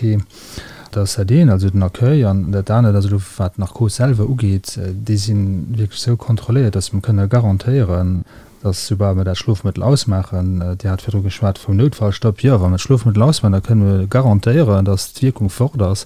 Dat ass dat eent, also den Accueil. An dat anert ass elo, wat d'Narkos selwer ugeet, déi si wierklech esou kontrolléiert, datt mer kënne garantéieren, datt soubal mer dat Schlofmëttel ausmaachen, Dir hat virdru geschwat vum Noutfallstopp, jo, wa mer d'Schlofmëttel ausmaachen, da kënne mer garantéieren, datt d'Wierkung fort ass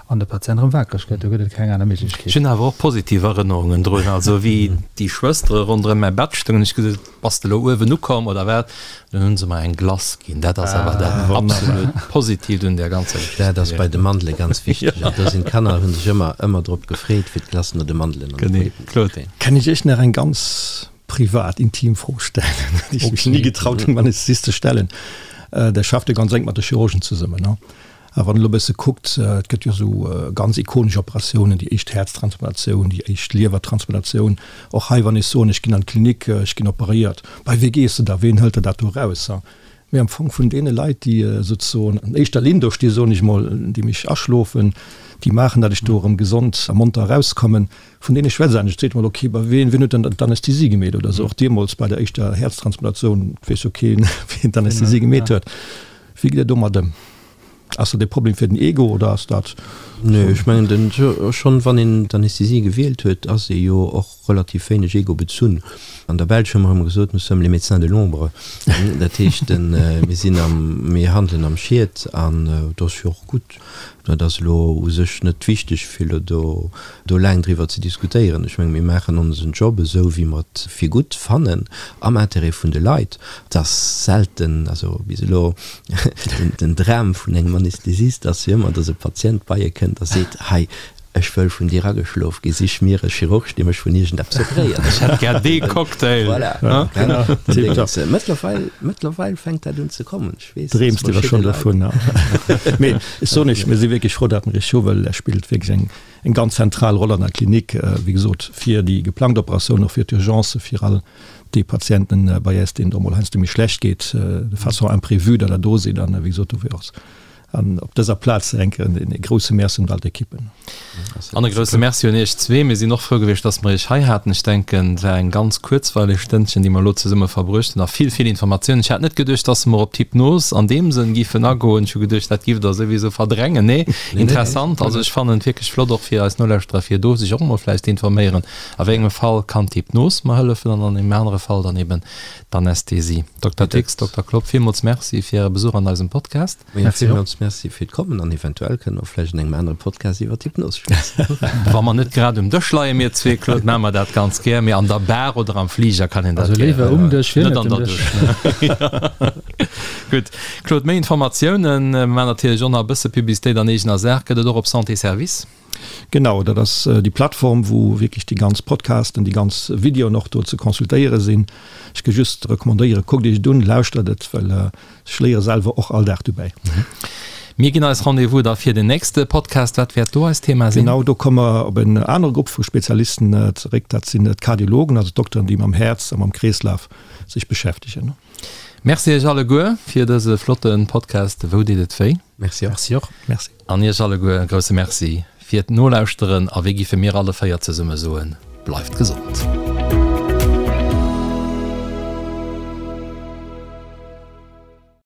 an de Patient erëm wakereg gëtt. Do gëtt et keng aner Méiglechkeet. Ech hunn awer och positiv Erënnerungen drun, also wéi déi Schwëstere ronderëm mäi Bett stoungen, ech gesot, Bass de elo uewen ukomm oder wat? Dunn hunn se mer eng Glace ginn. Dat ass awer dat absolut Positiivt un där ganzer Geschicht Dat ass bei de Mandele ganz wichteg. An do sinn d'Kanner, hu sech ëmmer, ëmmer drop gefreet, fir d'Glace no de Mandelen an de Genee. Pudding ze Claude. kréien. Kann ech Iech nach eng ganz privat, intim Fro stellen, déi ech mech ni getraut hunn, beim Anästhesist ze stellen? Der schafft jo ganz enk mat de Chirurgen zesummen, ne? A wann een elo e bësse kuckt, et gëtt jo esou ganz ikonesch Operatiounen, déi éischt Häerztransplantatioun, déi éischt Liewertransplantatioun. Och hei, wann ech soen, ech ginn an d'Klinik, ech ginn operéiert, bei wee gees de da, ween hëlt der dat do eraus? Mee am Fong vun deene Leit, déi souzesoen an éischter Linn do sti soen ech mol, déi mech aschlofen, déi maachen, datt ech do erëm gesond a monter erauskommen, vun deene schwätzt een. Ech seet mol, okay, bei ween, wien huet denn d'Anästhesie gemeet oder esou? Och deemools bei der éischter Häerztransplantatioun weess jo keen, wien d'Anästhesie gemeet huet. Wéi gitt Der domat ëm? Ass dat e Problem fir den Ego oder ass dat. Nee, ech mengen den, schonn wann een d'Anästhesie gewielt huet, ass ee jo och relativ wéineg ego-bezunn. An der Belsch hu mer ëmmer gesot, nous sommes les médecins de l'ombre. Dat heescht, mir sinn am, mir handelen am Schiet an dat ass jo och gutt. Dat ass elo u sech net wichteg, fir elo do, do laang driwwer ze diskutéieren. Ech menge mir maachen onsen Job esou, wéi mer et fir gutt fannen, am Intérêt vun de Leit. Et ass selten, also bis elo, den Dram vun engem Anästhesist ass jo ëmmer, datt e Patient bei e kënnt a seet, hei, ech wëll vun dir ageschlof ginn, sich mir e Chirurg, dee mech vun iergendeppes operéiert. Ech hätt gär dee Cocktail. Voilà. Mëttlerweil, mëttlerweil fänkt dat un ze kommen. Ech weess, Dreems de der schonn dovun? Mee ech soen iech, mir si wierklech frou, datt mer iech hu, well Där spillt wierklech eng, eng ganz zentral Roll an der Klinik, wéi gesot, fir déi geplangt Operatioun, och fir d'Urgencë, fir all déi Patienten bei äis, deenen et och mol heiansdo méi schlecht geet, de façon imprévue, datt Der do sidd. An wéi gesot, dofir och An op dëser Plaz enke e grousse Merci un all d'Ekippen. An e grousse Merci un Iech zwee. Mir sinn och frou gewiescht, dass mer Iech hei haten. Ech denken, et war eng ganz kuerzweileg Stënnchen, déi mer elo zesumme verbruecht hunn a vill, vill Informatiounen. Ech hat net geduecht, dass mer op d'Hypnos an deem Sënn giffen agoen. Ech hu geduecht, dat giff Der souwisou verdrängen. Nee, interessant. Also ech fannen et wierklech flott, och fir eis Nolauschterer, fir do sech och emol vläicht ze informéieren, a wéi engem Fall kann d'Hypnos mer hëllefen an an engem anere Fall dann eben d'Anästhesie. Dokter Dicks, Dokter Klopp, villmools Merci fir Äre Besuch an eisem Podcast. Majo, villmools Merci fir d'Kommen an eventuell kënne mer vläicht an engem anere Podcast iwwer d'Hypnos schwätzen. Wa mer net grad um Dësch leien, mir zwee, Claude, maache mer dat ganz gär, mee an der Bar oder am Fliger kann een dat gär. Also léiwer um Dësch wéi net um Dësch. Gutt, Claude, méi Informatiounen, mer maachen natierlech och nach e bësse Publicitéit an eegener Saach, gëtt et och op Santé Service. Genau, dat ass déi Plattform, wou wierklech déi ganz Podcasten, déi ganz Videoen och do ze consultéiere sinn. Ech ka just recommandéieren, kuckt iech et un, lauschtert et, well ech léiere selwer och all Dag dobäi. Mir ginn eis Rendez-vous da fir den nächste Podcast. Wat wäert do eist Thema sinn? Genau, do komme mer op en anere Grupp vu Spezialisten zeréck. Dat sinn d'Kardiologen, also d'Dokteren, déi mam Häerz a mam Kreeslaf sech beschäftegen. Merci iech alleguer fir dëse flotte Podcast Wou deet et wéi? Merci och. Merci och. Merci. An iech alleguer e grousse Merci fir d'Nolauschteren a wéi giffe mir alle 4 zesumme soen, bleift gesond.